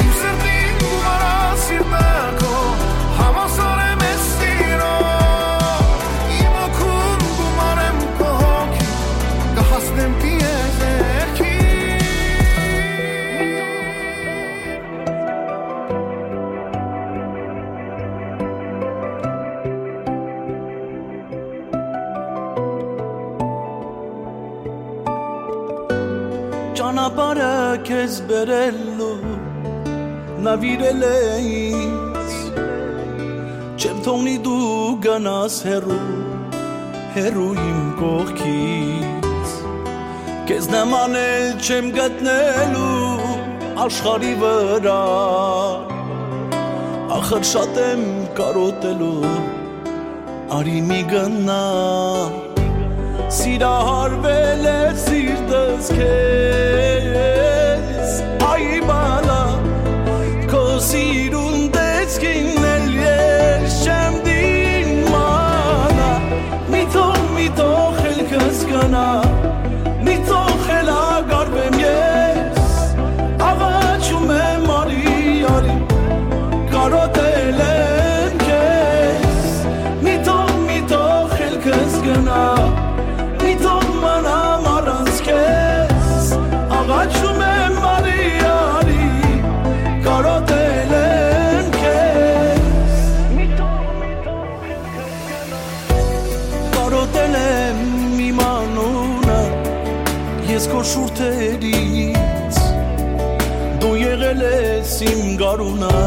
Իմ սրտին գումարած սիրտը քո, հավասար եմ ես սիրո, իմ օգուն գումարեմ քո հոգին, կհասնեմ տիեզերքին։ Ճանապարհը քեզ բերելու նավիրել է ինձ, չեմ թողնի դու գնաս հեռու, հեռու իմ կողքից, քեզ նման էլ չեմ գտնելու աշխարհի վրա, ախր շատ եմ կարոտելու, Արի մի գնամ, սիրահարվել է սիրտս քեզ, այ բալա, քո սիրուն տեսքին էլ ես չեմ դիմանա, մի թող, մի թող ելքս գնա, մի թող խելագարվեմ ես, աղաչում եմ արի, արի, կարոտել եմ քեզ, մի թող, մի թող ելքս գնա, մի թող մնամ առանց քեզ, աղաչում եմ արի, արի, կարոտել եմ քեզ, մի թող, մի թող ելքս գնա, կարոտել եմ իմ անունը, ես քո շուրթերից, դու եղել ես իմ գարունը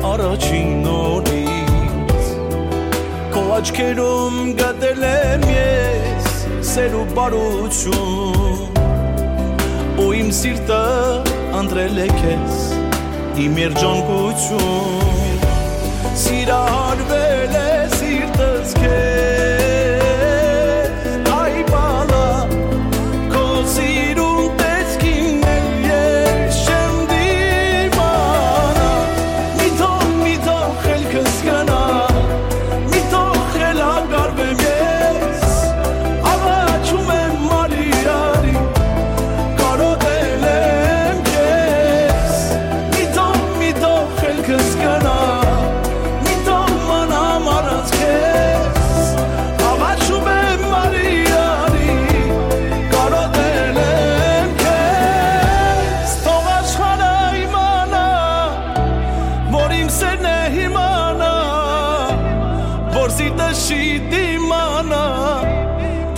առաջին օրից, քո աչքերում գտել եմ ես սեր ու բարություն, ու իմ սիրտը ընտրել է քեզ իմ երջանկություն, սիրահարվել է սիրտս քեզ, այ բալա, քո սիրուն տեսքին էլ ես չեմ դիմանա, մի թող, մի թող ելքս գնա, մի թող խելագարվեմ ես, աղաչում եմ արի, արի, կարոտել եմ քեզ, մի թող, մի թող ելքս գնա, մի թող մնամ առանց քեզ, աղաչում եմ արի, արի, կարոտել եմ քեզ, թող աշխարհը իմանա, որ իմ սերն է իմանա, որ սիրտը չի դիմանա,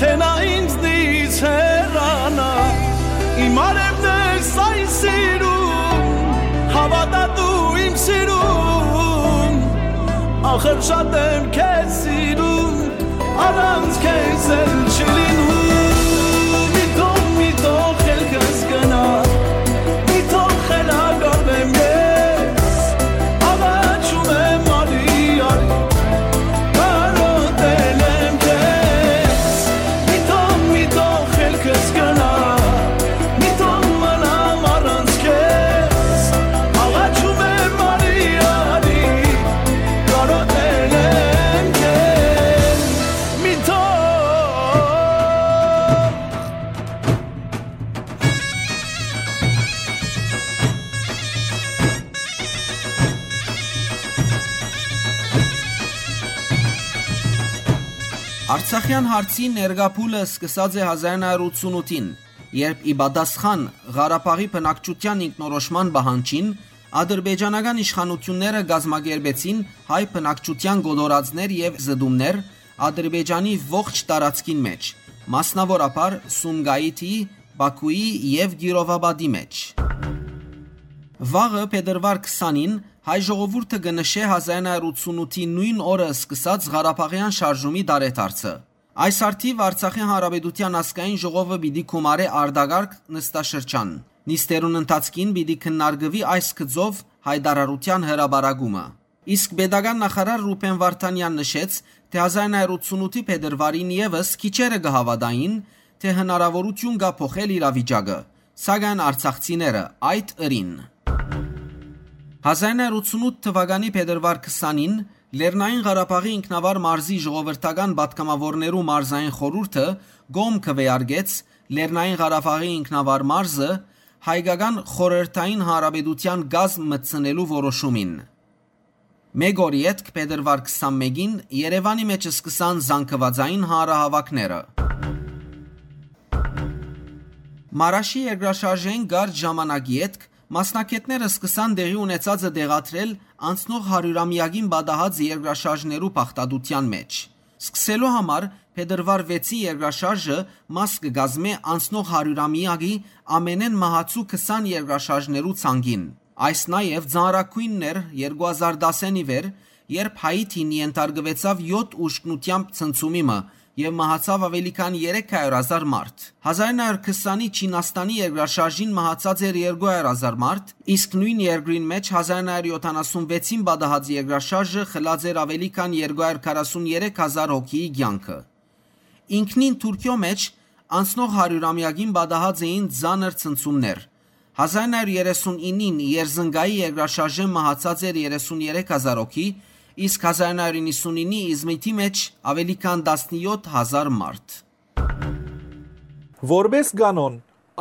թե նա ինձնից հեռանա, իմ արևն ես այս սիրուն, հավատա դու իմ սիրուն, ախր շատ եմ քեզ սիրուն, առանց քեզ էլ չի լինում, մի թող, մի թող ելքս գնա, մի թող խելագարվեմ ես, աղաչում եմ արի, արի, կարոտել եմ քեզ, մի թող, մի թող ելքս գնա, մի թող մնամ առանց քեզ, աղաչում եմ արի, արի, կարոտել եմ քեզ, մի թող Արցախեան հարցի ներկայ փուլը սկսած է հազար նոյ հարիւր ութսունութին, երբ ի պատասխան Ղարաբաղի բնակչութեան ինքնորոշման պահանջին ադրբեջանական իշխանութիւնները կազմակերպեցին հայ բնակչութեան կոտորածներ եւ զտումներ Ադրբեջանի ողջ տարածքին մէջ, մասնաւորաբար Սումգայիթի, Պաքուի եւ Կիրովապատի մէջ։ Վաղը, փետրուար քսանին, հայ ժողովուրդը կը նշէ հազար նոյ հարիւր ութսունութի նոյն օրը սկսած Ղարաբաղեան շարժումի տարեդարձը։ Այս առթիւ Արցախի Հանրապետութեան Ազգային ժողովը պիտի գումարէ արտակարգ նստաշրջան։ Նիստերուն ընթացքին պիտի քննարկուի այս գծով յայտարարութեան հրապարակումը։ Իսկ պետական նախարար Ռուբեն Վարդանեան նշեց, թէ հազար նոյ հարիւր ութսունութի փետրուարին եւս քիչերը կը հաւատային, թէ հնարաւորութիւն կայ փոխել իրավիճակը, սակայն արցախցիները այդ ըրին։ Հազար նոյ հարիւր ութսունութ թուականի փետրուար քսանին Լեռնային Ղարաբաղի ինքնավար մարզի ժողովրդական պատգամաւորներու մարզային խորհուրդը կողմ քուէարկեց Լեռնային Ղարաբաղի ինքնավար մարզը հայկական խորհրդային հանրապետութեան կազմ մտցնելու որոշումին։ Մէկ օր ետք, փետրուար քսանմէկին, Երեւանի մէջ սկսան զանգուածային հանրահաւաքները։ Մարաշի երկրաշարժէն կարճ ժամանակ ետք, մասնագէտները սկսան տեղի ունեցածը տեղադրել անցնող հարիւրամեակին պատահած երկրաշարժներու բաղդատութեան մէջ։ Սկսելու համար, փետրուար վեցին երկրաշարժը մաս կը կազմէ անցնող հարիւրամեակի ամենէն մահացու քսան երկրաշարժներու ցանկին։ Այս նաեւ ծանրագոյնն էր երկու հազար տասին ի վեր, երբ Հայիթին ենթարկուեցաւ յոթ ուժգնութեամբ ցնցումի մը եւ մահացաւ աւելի քան երեք հարիւր հազար մարդ։ Հազար ինը հարիւր քսանի Չինաստանի երկրաշարժին մահացած էր երկու հարիւր հազար մարդ, իսկ նոյն երկրին մէջ հազար ինը հարիւր յոթանասուն վեցին պատահած երկրաշարժը խլած էր աւելի քան երկու հարիւր քառասուն երեք հազար հոգիի կեանքը։ Ինքնին Թուրքիոյ մէջ անցնող հարիւրամեակին պատահած էին ծանր ցնցումներ։ Հազար ինը հարիւր երեսուն ինին Երզնկայի երկրաշարժէն մահացած էր երեսուն երեք հազար հոգի, իսկ հազար ինը հարիւր իննսուն ինի Իզմիթի մէջ աւելի քան տասնեօթ հազար մարդ։ Որպէս կանոն,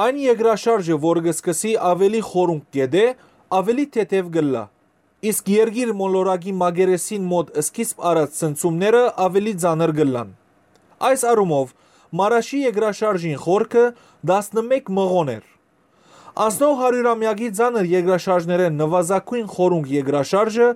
այն երկրաշարժը, որ կը սկսի աւելի խորունկ կետէ, աւելի թեթեւ կ'ըլլայ, իսկ երկիր մոլորակի մակերեսին մօտ սկիզբ առած ցնցումները աւելի ծանր կ'ըլլան։ Այս առումով, Մարաշի երկրաշարժին խորքը տասնմէկ մղոն էր։ Անցնող հարիւրամեակի ծանր երկրաշարժներէն նուազագոյն խորունկ երկրաշարժը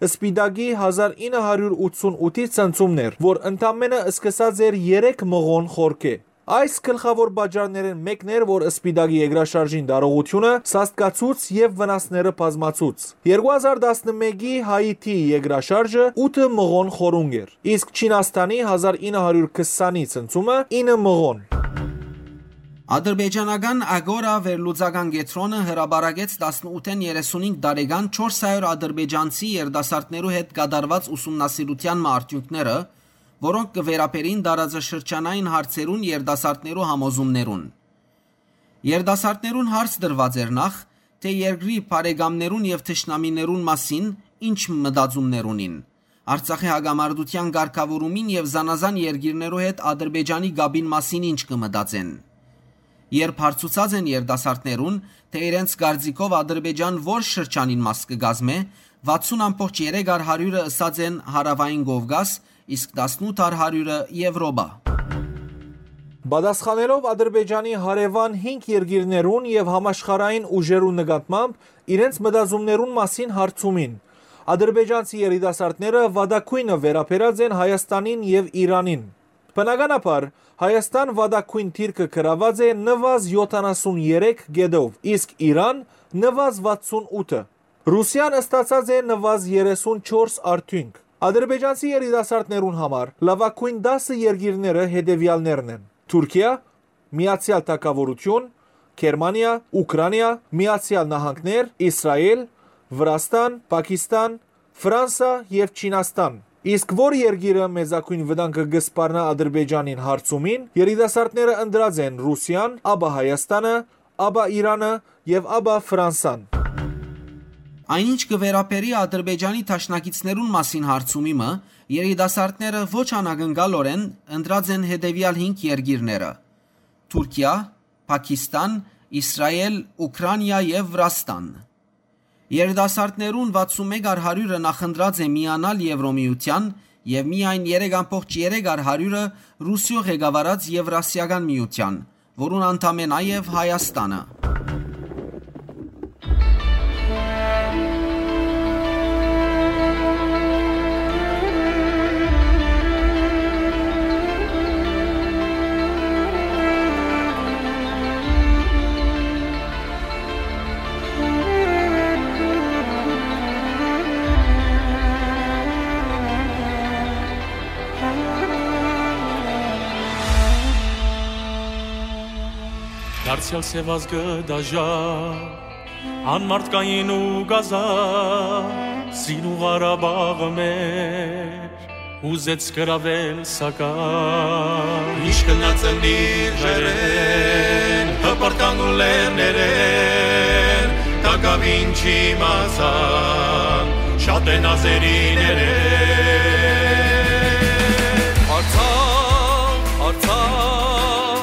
Սպիտակի հազար ինը հարիւր ութսուն ութի ցնցումն էր, որ ընդամէնը սկսած էր երեք մղոն խորքէ։ Այս գլխաւոր պատճառներէն մէկն էր, որ Սպիտակի երկրաշարժին տարողութիւնը սաստկացուց եւ վնասները բազմացուց։ Երկու հազար տասնմէկի Հայիթի երկրաշարժը ութը մղոն խորունկ էր, իսկ Չինաստանի հազար ինը հարիւր քսանի ցնցումը ինը մղոն։ Ադրբեջանական Ագորա վերլուծական կեդրոնը հրապարակեց տասնութէն երեսունհինգ տարեկան չորս հարիւր ադրբեջանցի երիտասարդներու հետ կատարուած ուսումնասիրութեան մը արդիւնքները, որոնք կը վերաբերին տարածաշրջանային հարցերուն երիտասարդներու համոզումներուն։ Երիտասարդներուն հարց տրուած էր նախ, թէ երկրի բարեկամներուն եւ թշնամիներուն մասին ինչ մտածումներ ունին, Արցախի հակամարտութեան կարգաւորումին եւ զանազան երկիրներու հետ Ադրբեջանի կապին մասին ինչ կը մտածեն։ Երբ հարցուցած են երիտասարդներուն, թէ իրենց կարծիքով Ադրբեջան որ շրջանին մաս կը կազմէ, վաթսուն ամբողջ երեք առ հարիւրը ըսած են Հարաւային Կովկաս, իսկ տասնութ առ հարիւրը՝ Եւրոպա։ Պատասխանելով Ադրբեջանի հարեւան հինգ երկիրներուն եւ համաշխարհային ուժերուն նկատմամբ իրենց մտածումներուն մասին հարցումին, ադրբեջանցի երիտասարդները վատագոյնը վերաբերած են Հայաստանին եւ Իրանին։ Բնականաբար, Հայաստան վատագոյն դիրքը գրաւած է նուազ յոթանասուն երեք կետով, իսկ Իրան՝ նուազ վաթսուն ութը։ Ռուսիան ստացած է նուազ երեսուն չորս արդիւնք։ Ադրբեջանցի երիտասարդներուն համար լաւագոյն տասը երկիրները հետեւեալներն են. Թուրքիա, Միացեալ Թագաւորութիւն, Գերմանիա, Ուքրանիա, Միացեալ Նահանգներ, Իսրայէլ, Վրաստան, Պակիստան, Ֆրանսա եւ Չինաստան։ Իսկ որ երկիրը մեծագոյն վտանգը կը սպառնայ Ադրբեջանին հարցումին, երիտասարդները ընտրած են Ռուսիան, ապա Հայաստանը, ապա Իրանը եւ ապա Ֆրանսան։ Այն ինչ կը վերաբերի Ադրբեջանի դաշնակիցներուն մասին հարցումի մը, երիտասարդները ոչ անակնկալօրէն ընտրած են հետեւեալ հինգ երկիրները՝ Թուրքիա, Պակիստան, Իսրայէլ, Ուքրանիա եւ Վրաստան։ Երիտասարդներուն վաթսուն մէկ առ հարիւրը նախընտրած է միանալ Եվրոմիութեան եւ միայն երեք ամբողջ երեք առ հարիւրը Ռուսիոյ ղեկավարած Եվրասիական միութեան, որուն անդամ է նաեւ Հայաստանը։ Դարձեալ սեւազգը դաժա, անմարդկային ու կազա, սին ու Ղարաբաղը մեր, ուզեց գրավել սակայն։ Ինչ գնաց ընտիր ջերեն, հպրտան ու լեռներեն, տակաւին չիմացան, շատ են ազերիներեն։ Արցախ, Արցախ,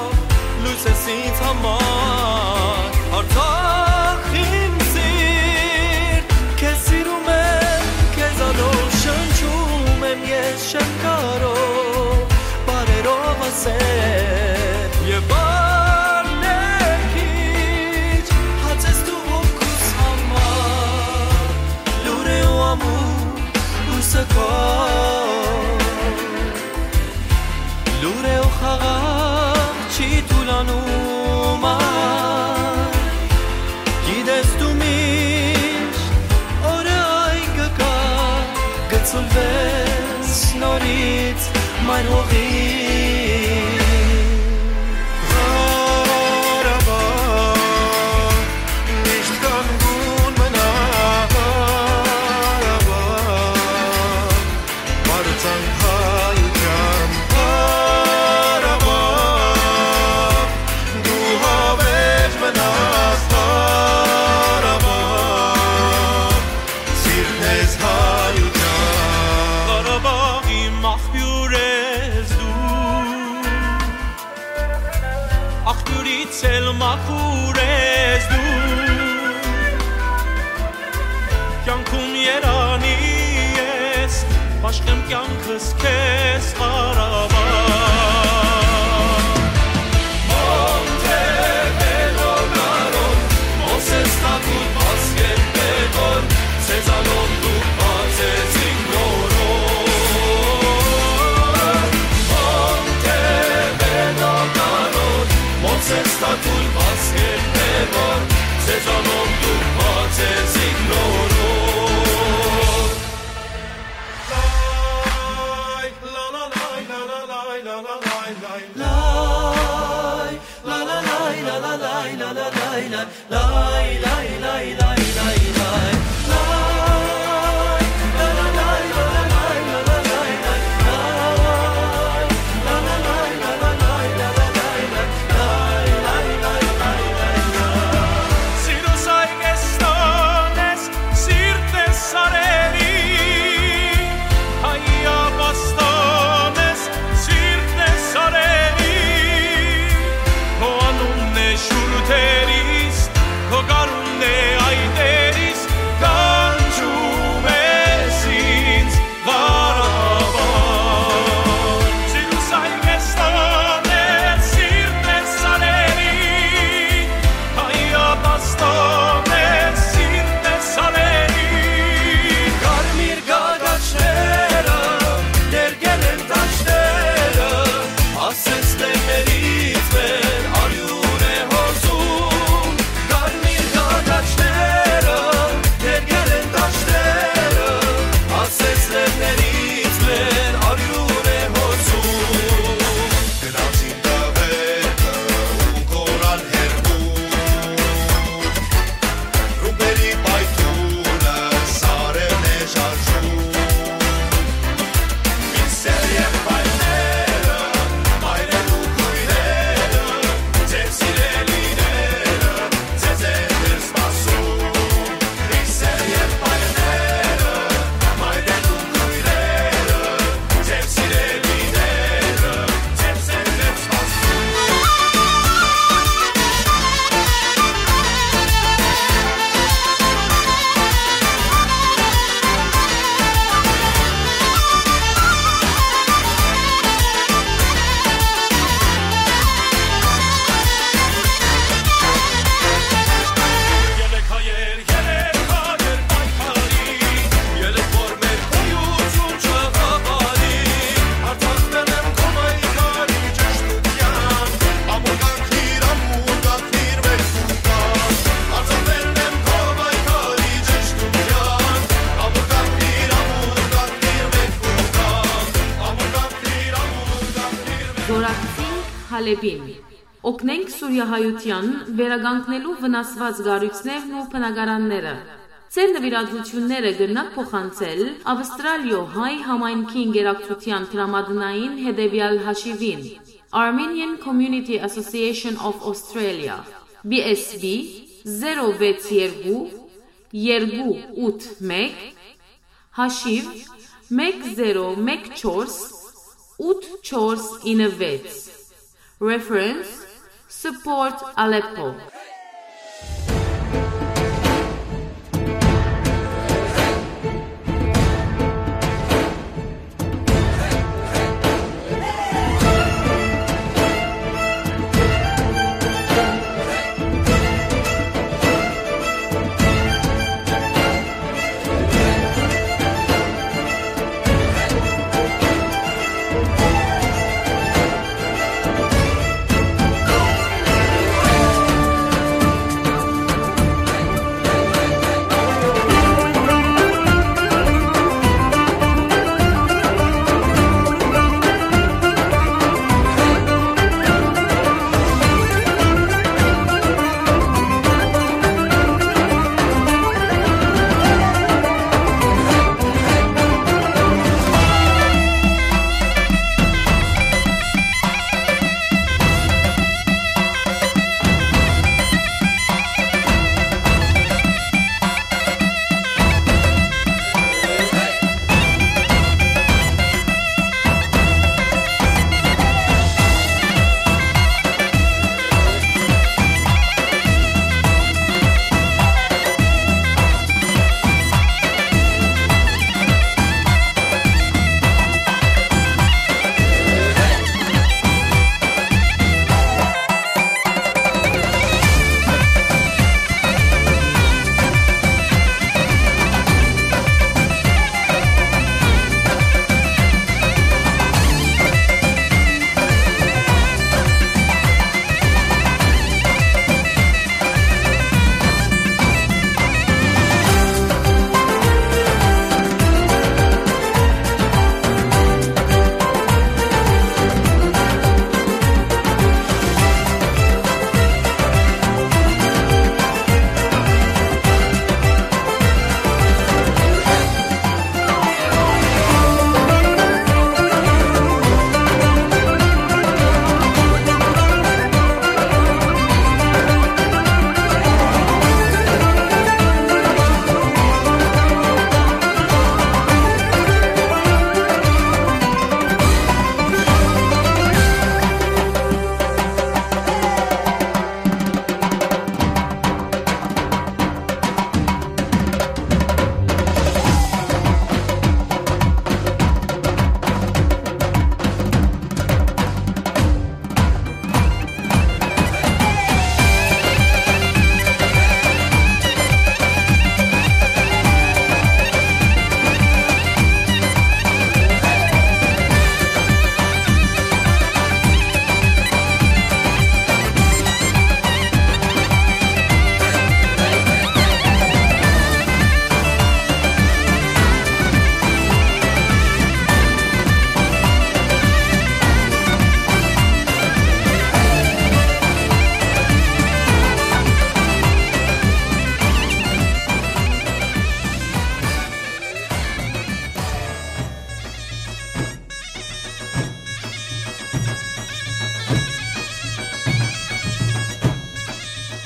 լույս ես ինձ համար, Արցախ իմ սիրտ, քեզ սիրում եմ, քեզանով շնչում եմ ես, չեմ կարող բառերով ասել, եւ բառներ քիչ, հաց ես դու հոգուս համար, լուր է ու ամուր լույսը քո, լուր է ու խաղաղ չի թուլանում ա, գիտես դու միշտ օրը այն կգա, կը Սուլվես նորից մայր հողի։ Ղարաբաղ, միշտ կանգուն մնա, Ղարաբաղ, պարծանք հայության, Ղարաբաղ, դու հավերժ մնաս, Ղարաբաղ, սիրտն ես հայության։ Ղարաբաղի մախբիւր ես դու, աղբիւրից էլ մաքուր ես դու, կեանքում երանի ես, պաշտեմ կեանքս քեզ, Ղարաբաղ։ Մոնտեվեդո, Կարոն, Մովսես Թագուտ, Վասկեն Պեգոն, Սեզանոն դուք բացեց իմ նորոն։ Մոնտեվեդո, Կարոն, Մովսես Թագուտ, Վասկեն Պեգոն, Սեզանոն դուք բացեց իմ նորոն։ Սիրտն է սարերի, հայ ապաստան ես, սիրտն է սարերի, քո անունն է շուրթերիս, քո գարունն է այտերիս, կանչում ես ինձ, Ղարաբաղ։ Սիրուսայ կեստան ես, սիրտն է սարերի, հայ ապաստան ես, սիրտն է սարերի։ Կարմիր գագաչները ներկել են դաշտերը, ասես լեռներից մեր արիւն է հոսում։ Կարմիր գագաչները ներկել են դաշտերը, ասես լեռներից մեր արիւն է հոսում։ Գնացին տղերքը ու կորան հեռու, ռումբերի պայթունը սարերն է շարժում։ Մինչդեռ եղբայրները, մայրեր ու քույրերը, ձեր սիրելիները ձեզ են դեռ սպասում։ Մինչդեռ եղբայրները, մայրեր ու քույրերը, ձեր սիրելիները ձեզ են դեռ սպասում։ Երեք հայեր, երեք հայեր պայքարի, երեք որ մեր գոյություն չհավանի։ Արձակվել եմ քո պայքարի ճշդութեան, ամուր կանգնիր, ամուր կանգնիր մեր Սուրբան։ Արձակվել եմ քո պայքարի ճշդութեան, ամուր կանգնիր, ամուր կանգնիր մեր Սուրբան, ամուր կանգնիր, ամուր կանգնիր մեր Զօրակցինք Հալէպին։ Օգնենք սուրիահայութեան վերականգնելու վնասուած կառոյցներն ու բնակարանները։ Ձեր նուիրատուութիւնները կրնաք փոխանցել Աւստրալիոյ հայ համայնքի ընկերակցութեան դրամատնային հետեւեալ հաշիւին, Armenian Community Association of Australia, B S B zero վեց երկու երկու ութ մեկ, հաշիւ մէկ զերո մէկ չորս ութ չորս ինը վեց, reference Support Aleppo։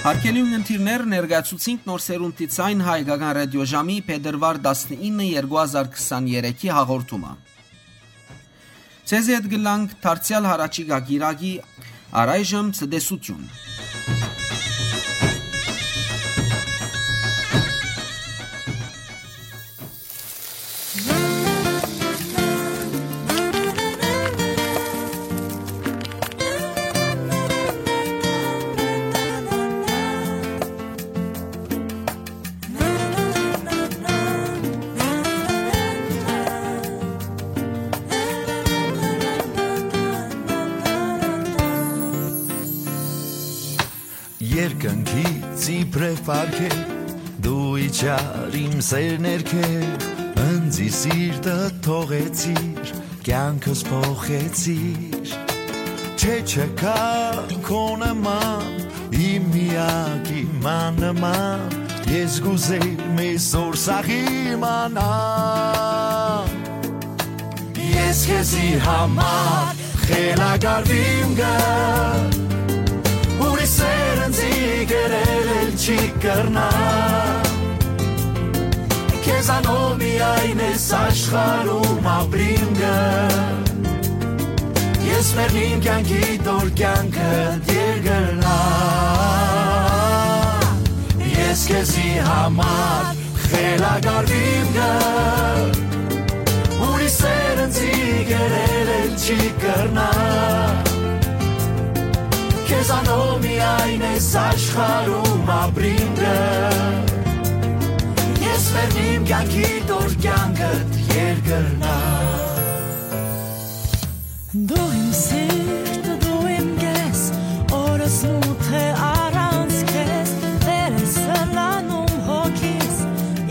Հարգելի ունգընտիրներ, ներկայացուցինք Նոր Սերունդի Ձայնը հայկական ռադիոժամի փետրուար տասնինը երկու հազար քսաներեքի հաղորդումը։ Ձեզի հետ կ'ըլլանք դարձեալ յառաջիկայ կիրակի, առայժմ ցտեսութիւն։ Երկնքից իբրեւ արգել, դու իջար իմ սեր ներքեւ, ընծի սիրտը թողեցիր, կեանքս փոխեցիր։ Չէ, չկայ քո նման, իմ միակ իմ աննման, ես կ'ուզեմ այսօր սաղ իմանալ։ Ես քեզի համար խելագարվիմ գ, ուրիշ սեր ինծի կերել էլ չի կրնայ։ Քեզանով միայն ես աշխարհում ապրիմ գ, ես մեռնիմ կեանքի դոր կեանքդ երկրնայ։ Ես քեզի համար խելագարվիմ գ, ուրիշ սեր ինծի կերել էլ չի կրնայ։ Քեզանով միայն ես աշխարհում ապրիմ գ, ես մեռնիմ կեանքի դոր կեանքդ երկրնայ։ Դու իմ սիրտը, դու իմ կես, օրս մութ է առանց քեզ, վեր է սլանում հոգիս,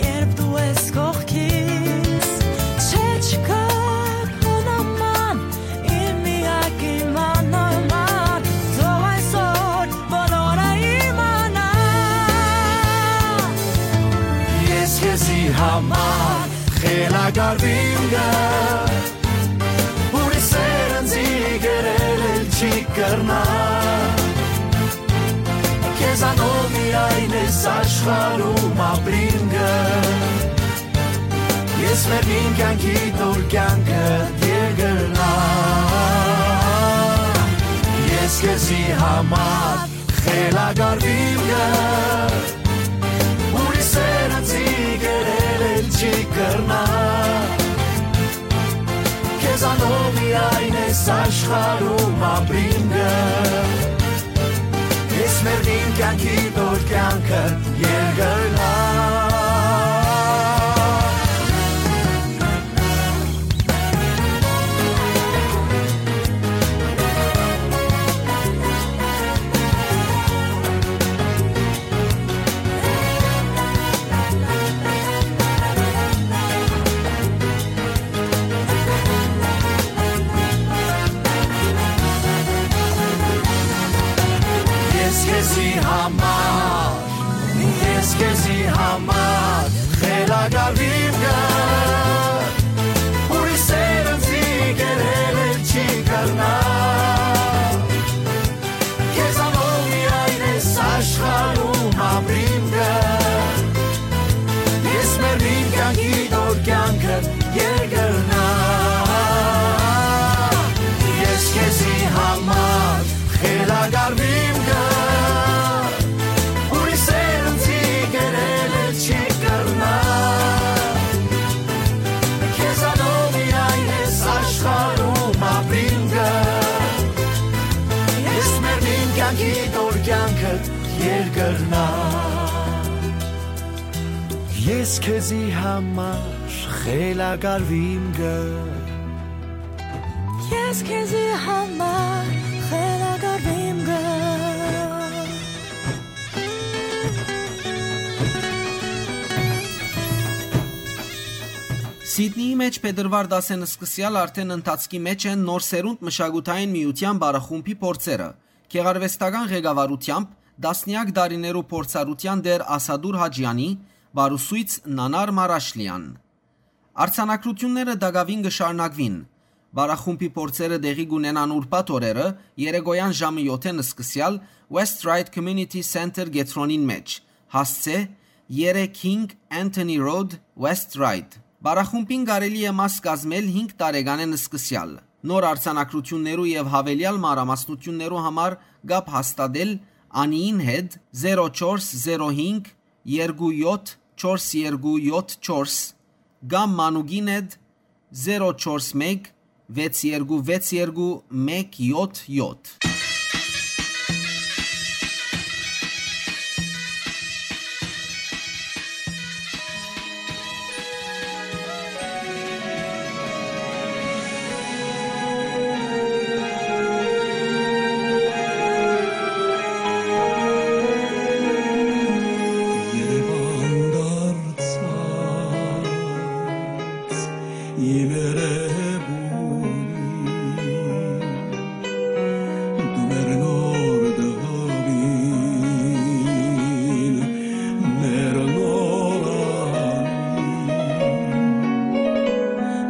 երբ դու ես կողքիս։ Չէ, չկայ քո նման, իմ միակ իմ աննման, թող այսօր բոլորը իմանան։ Ես քեզի համար խելագարվիմ գ, ուրիշ սեր ինծի կերել էլ չի կրնայ։ Քեզանով միայն ես աշխարհում ապրիմ գ, ես մեռնիմ կեանքի դոր կեանքդ երկրնայ։ Ես քեզի համար խելագարվիմ գ, ուրիշ սեր ինծի կերել էլ չի կրնայ։ Քեզանով միայն ես աշխարհում ապրիմ գ, ես մեռնիմ կեանքի դոր կեանքը երկրնայ։ Ես քեզի համար, ես քեզի համար խելագարվիմ գ, ուրիշ սեր ինծի կերել էլ չի կրնայ։ Քեզանով միայն ես աշխարհում ապրիմ գ, ես մեռնիմ կեանքի դոր կեանքը երկրնայ։ Ես քեզի համար խելագարվիմ գ, ուրիշ սեր ինծի կերել էլ չի կրնայ։ Քեզանով միայն ես աշխարհում ապրիմ գ, ես մեռնիմ կեանքի դոր կեանքը երկրնայ։ Ես քեզի համար խելագարվիմ գ, ես քեզի համար խելագարվիմ գ։ Սիդնիի մէջ փետրուար տասին սկսեալ արդէն ընթացքի մէջ են Նոր Սերունդ մշակութային միութեան բարախումբի փորձերը, գեղարուեստական ղեկավարութեամբ տասնեակ տարիներու փորձառութեան տէր Ասադուր Հաճեանի, բարուսոյց Նանար Մարաշլեան։ Արձանագրութիւնները տակաւին կը շարունակուին։ Պարախումբի փորձերը տեղի կունենան ուրբաթ օրերը, երեկոյան ժամը յոթ-ին սկսեալ, West Ryde Community Center կեդրոնին մէջ, հասցէ՝ երեք հինգ Anthony Road, West Ryde։ Պարախումբին կարելի է մաս կազմել հինգ տարեկանէն սկսեալ։ Նոր արձանագրութիւններու եւ յաւելեալ մանրամասնութիւններու համար կապ հաստատել Անիին հետ՝ զերո չորս զերո հինգ երկու յոթ չորս երկու յոթ չորս, կամ Մանուկին հետ՝ զերո չորս մէկ վեց երկու վեց երկու մէկ յոթ յոթ։ Երևան դարձած իմ երևույթ, դու մեր նոր տղին, մեր նոր անին,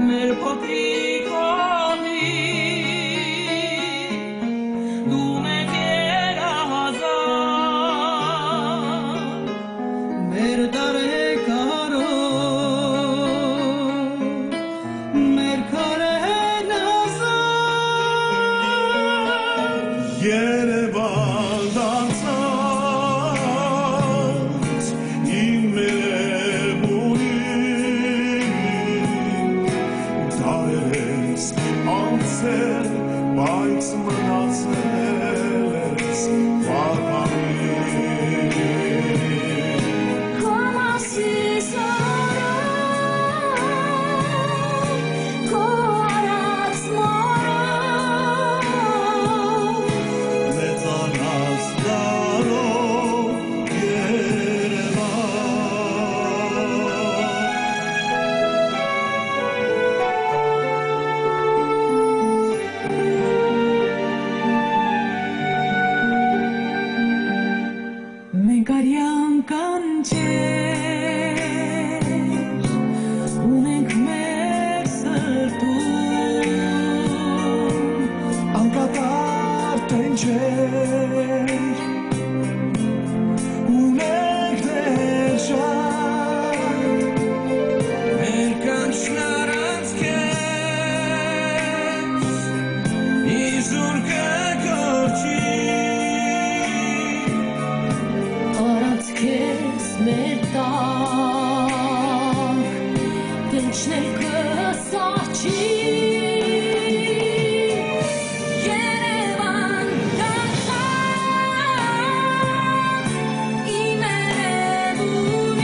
մեր փոքրիկ հողին, դու մեր երազան, մեր տարեգարով, մեր քարերն ազատ։ Երևան դարձած իմ երևույթ, դարեր ես անցել, բայց մնացել ես պահպանիլ։ Քո մասիս օրով, քո արած մորով, մեծանաս դարով, Երևան։ Մենք արեան կանչեր ունենք մեր սրտում, անկատար տենչեր ունենք դեռ շատ։ Մեր կանչն առանց քեզ իզուր կը կորչի։ Առանց քեզ մեր տակ տենչն էլ կը սառչի։ Երևան դարձած իմ երևույթ,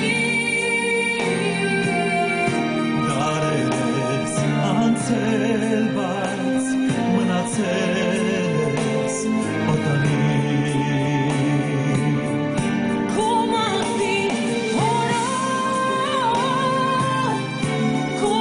դարեր ես անցել, բայց մնացել ես օտարին։ Քո մահվին օրով, քո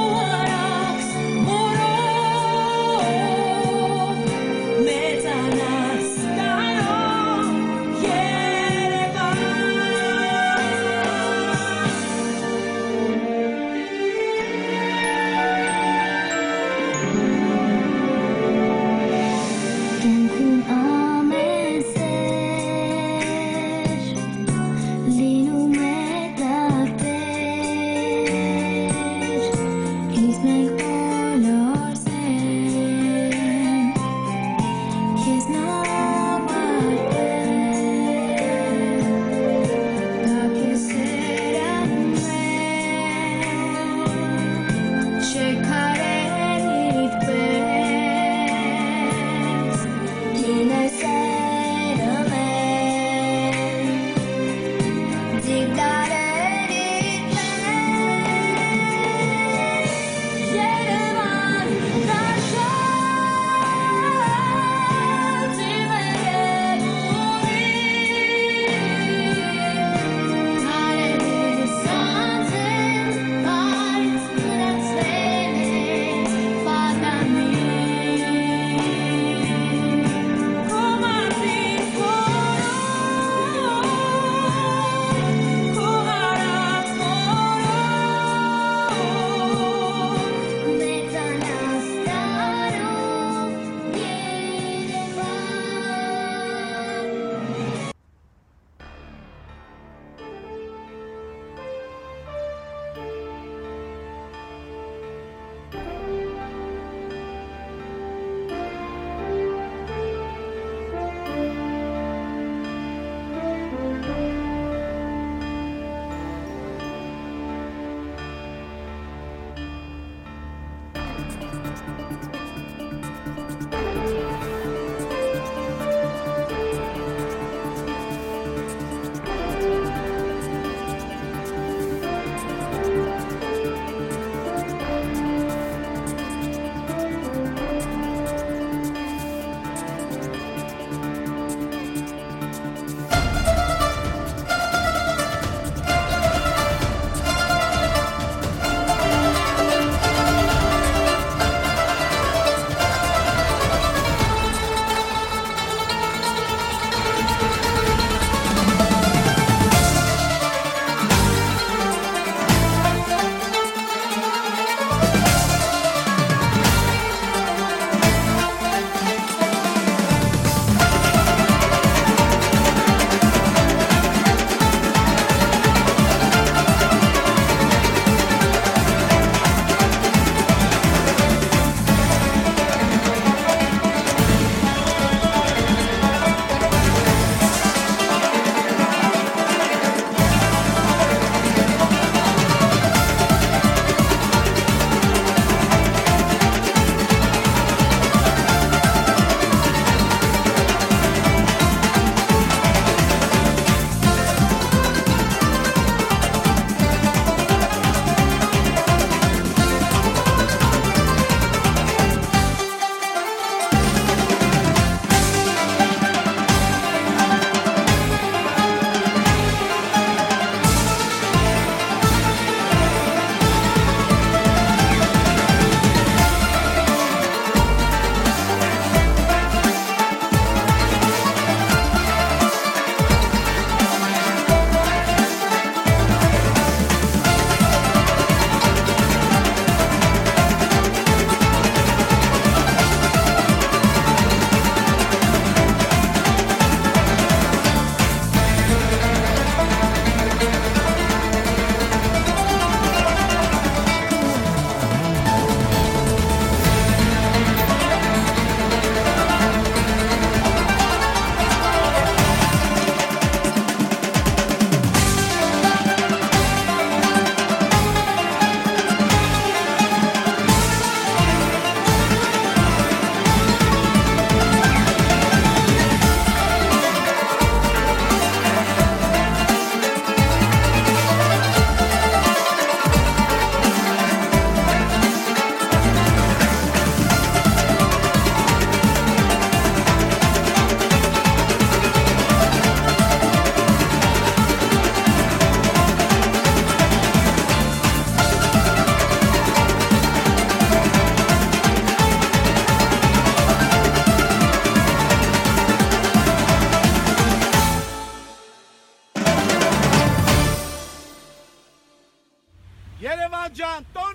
Անտո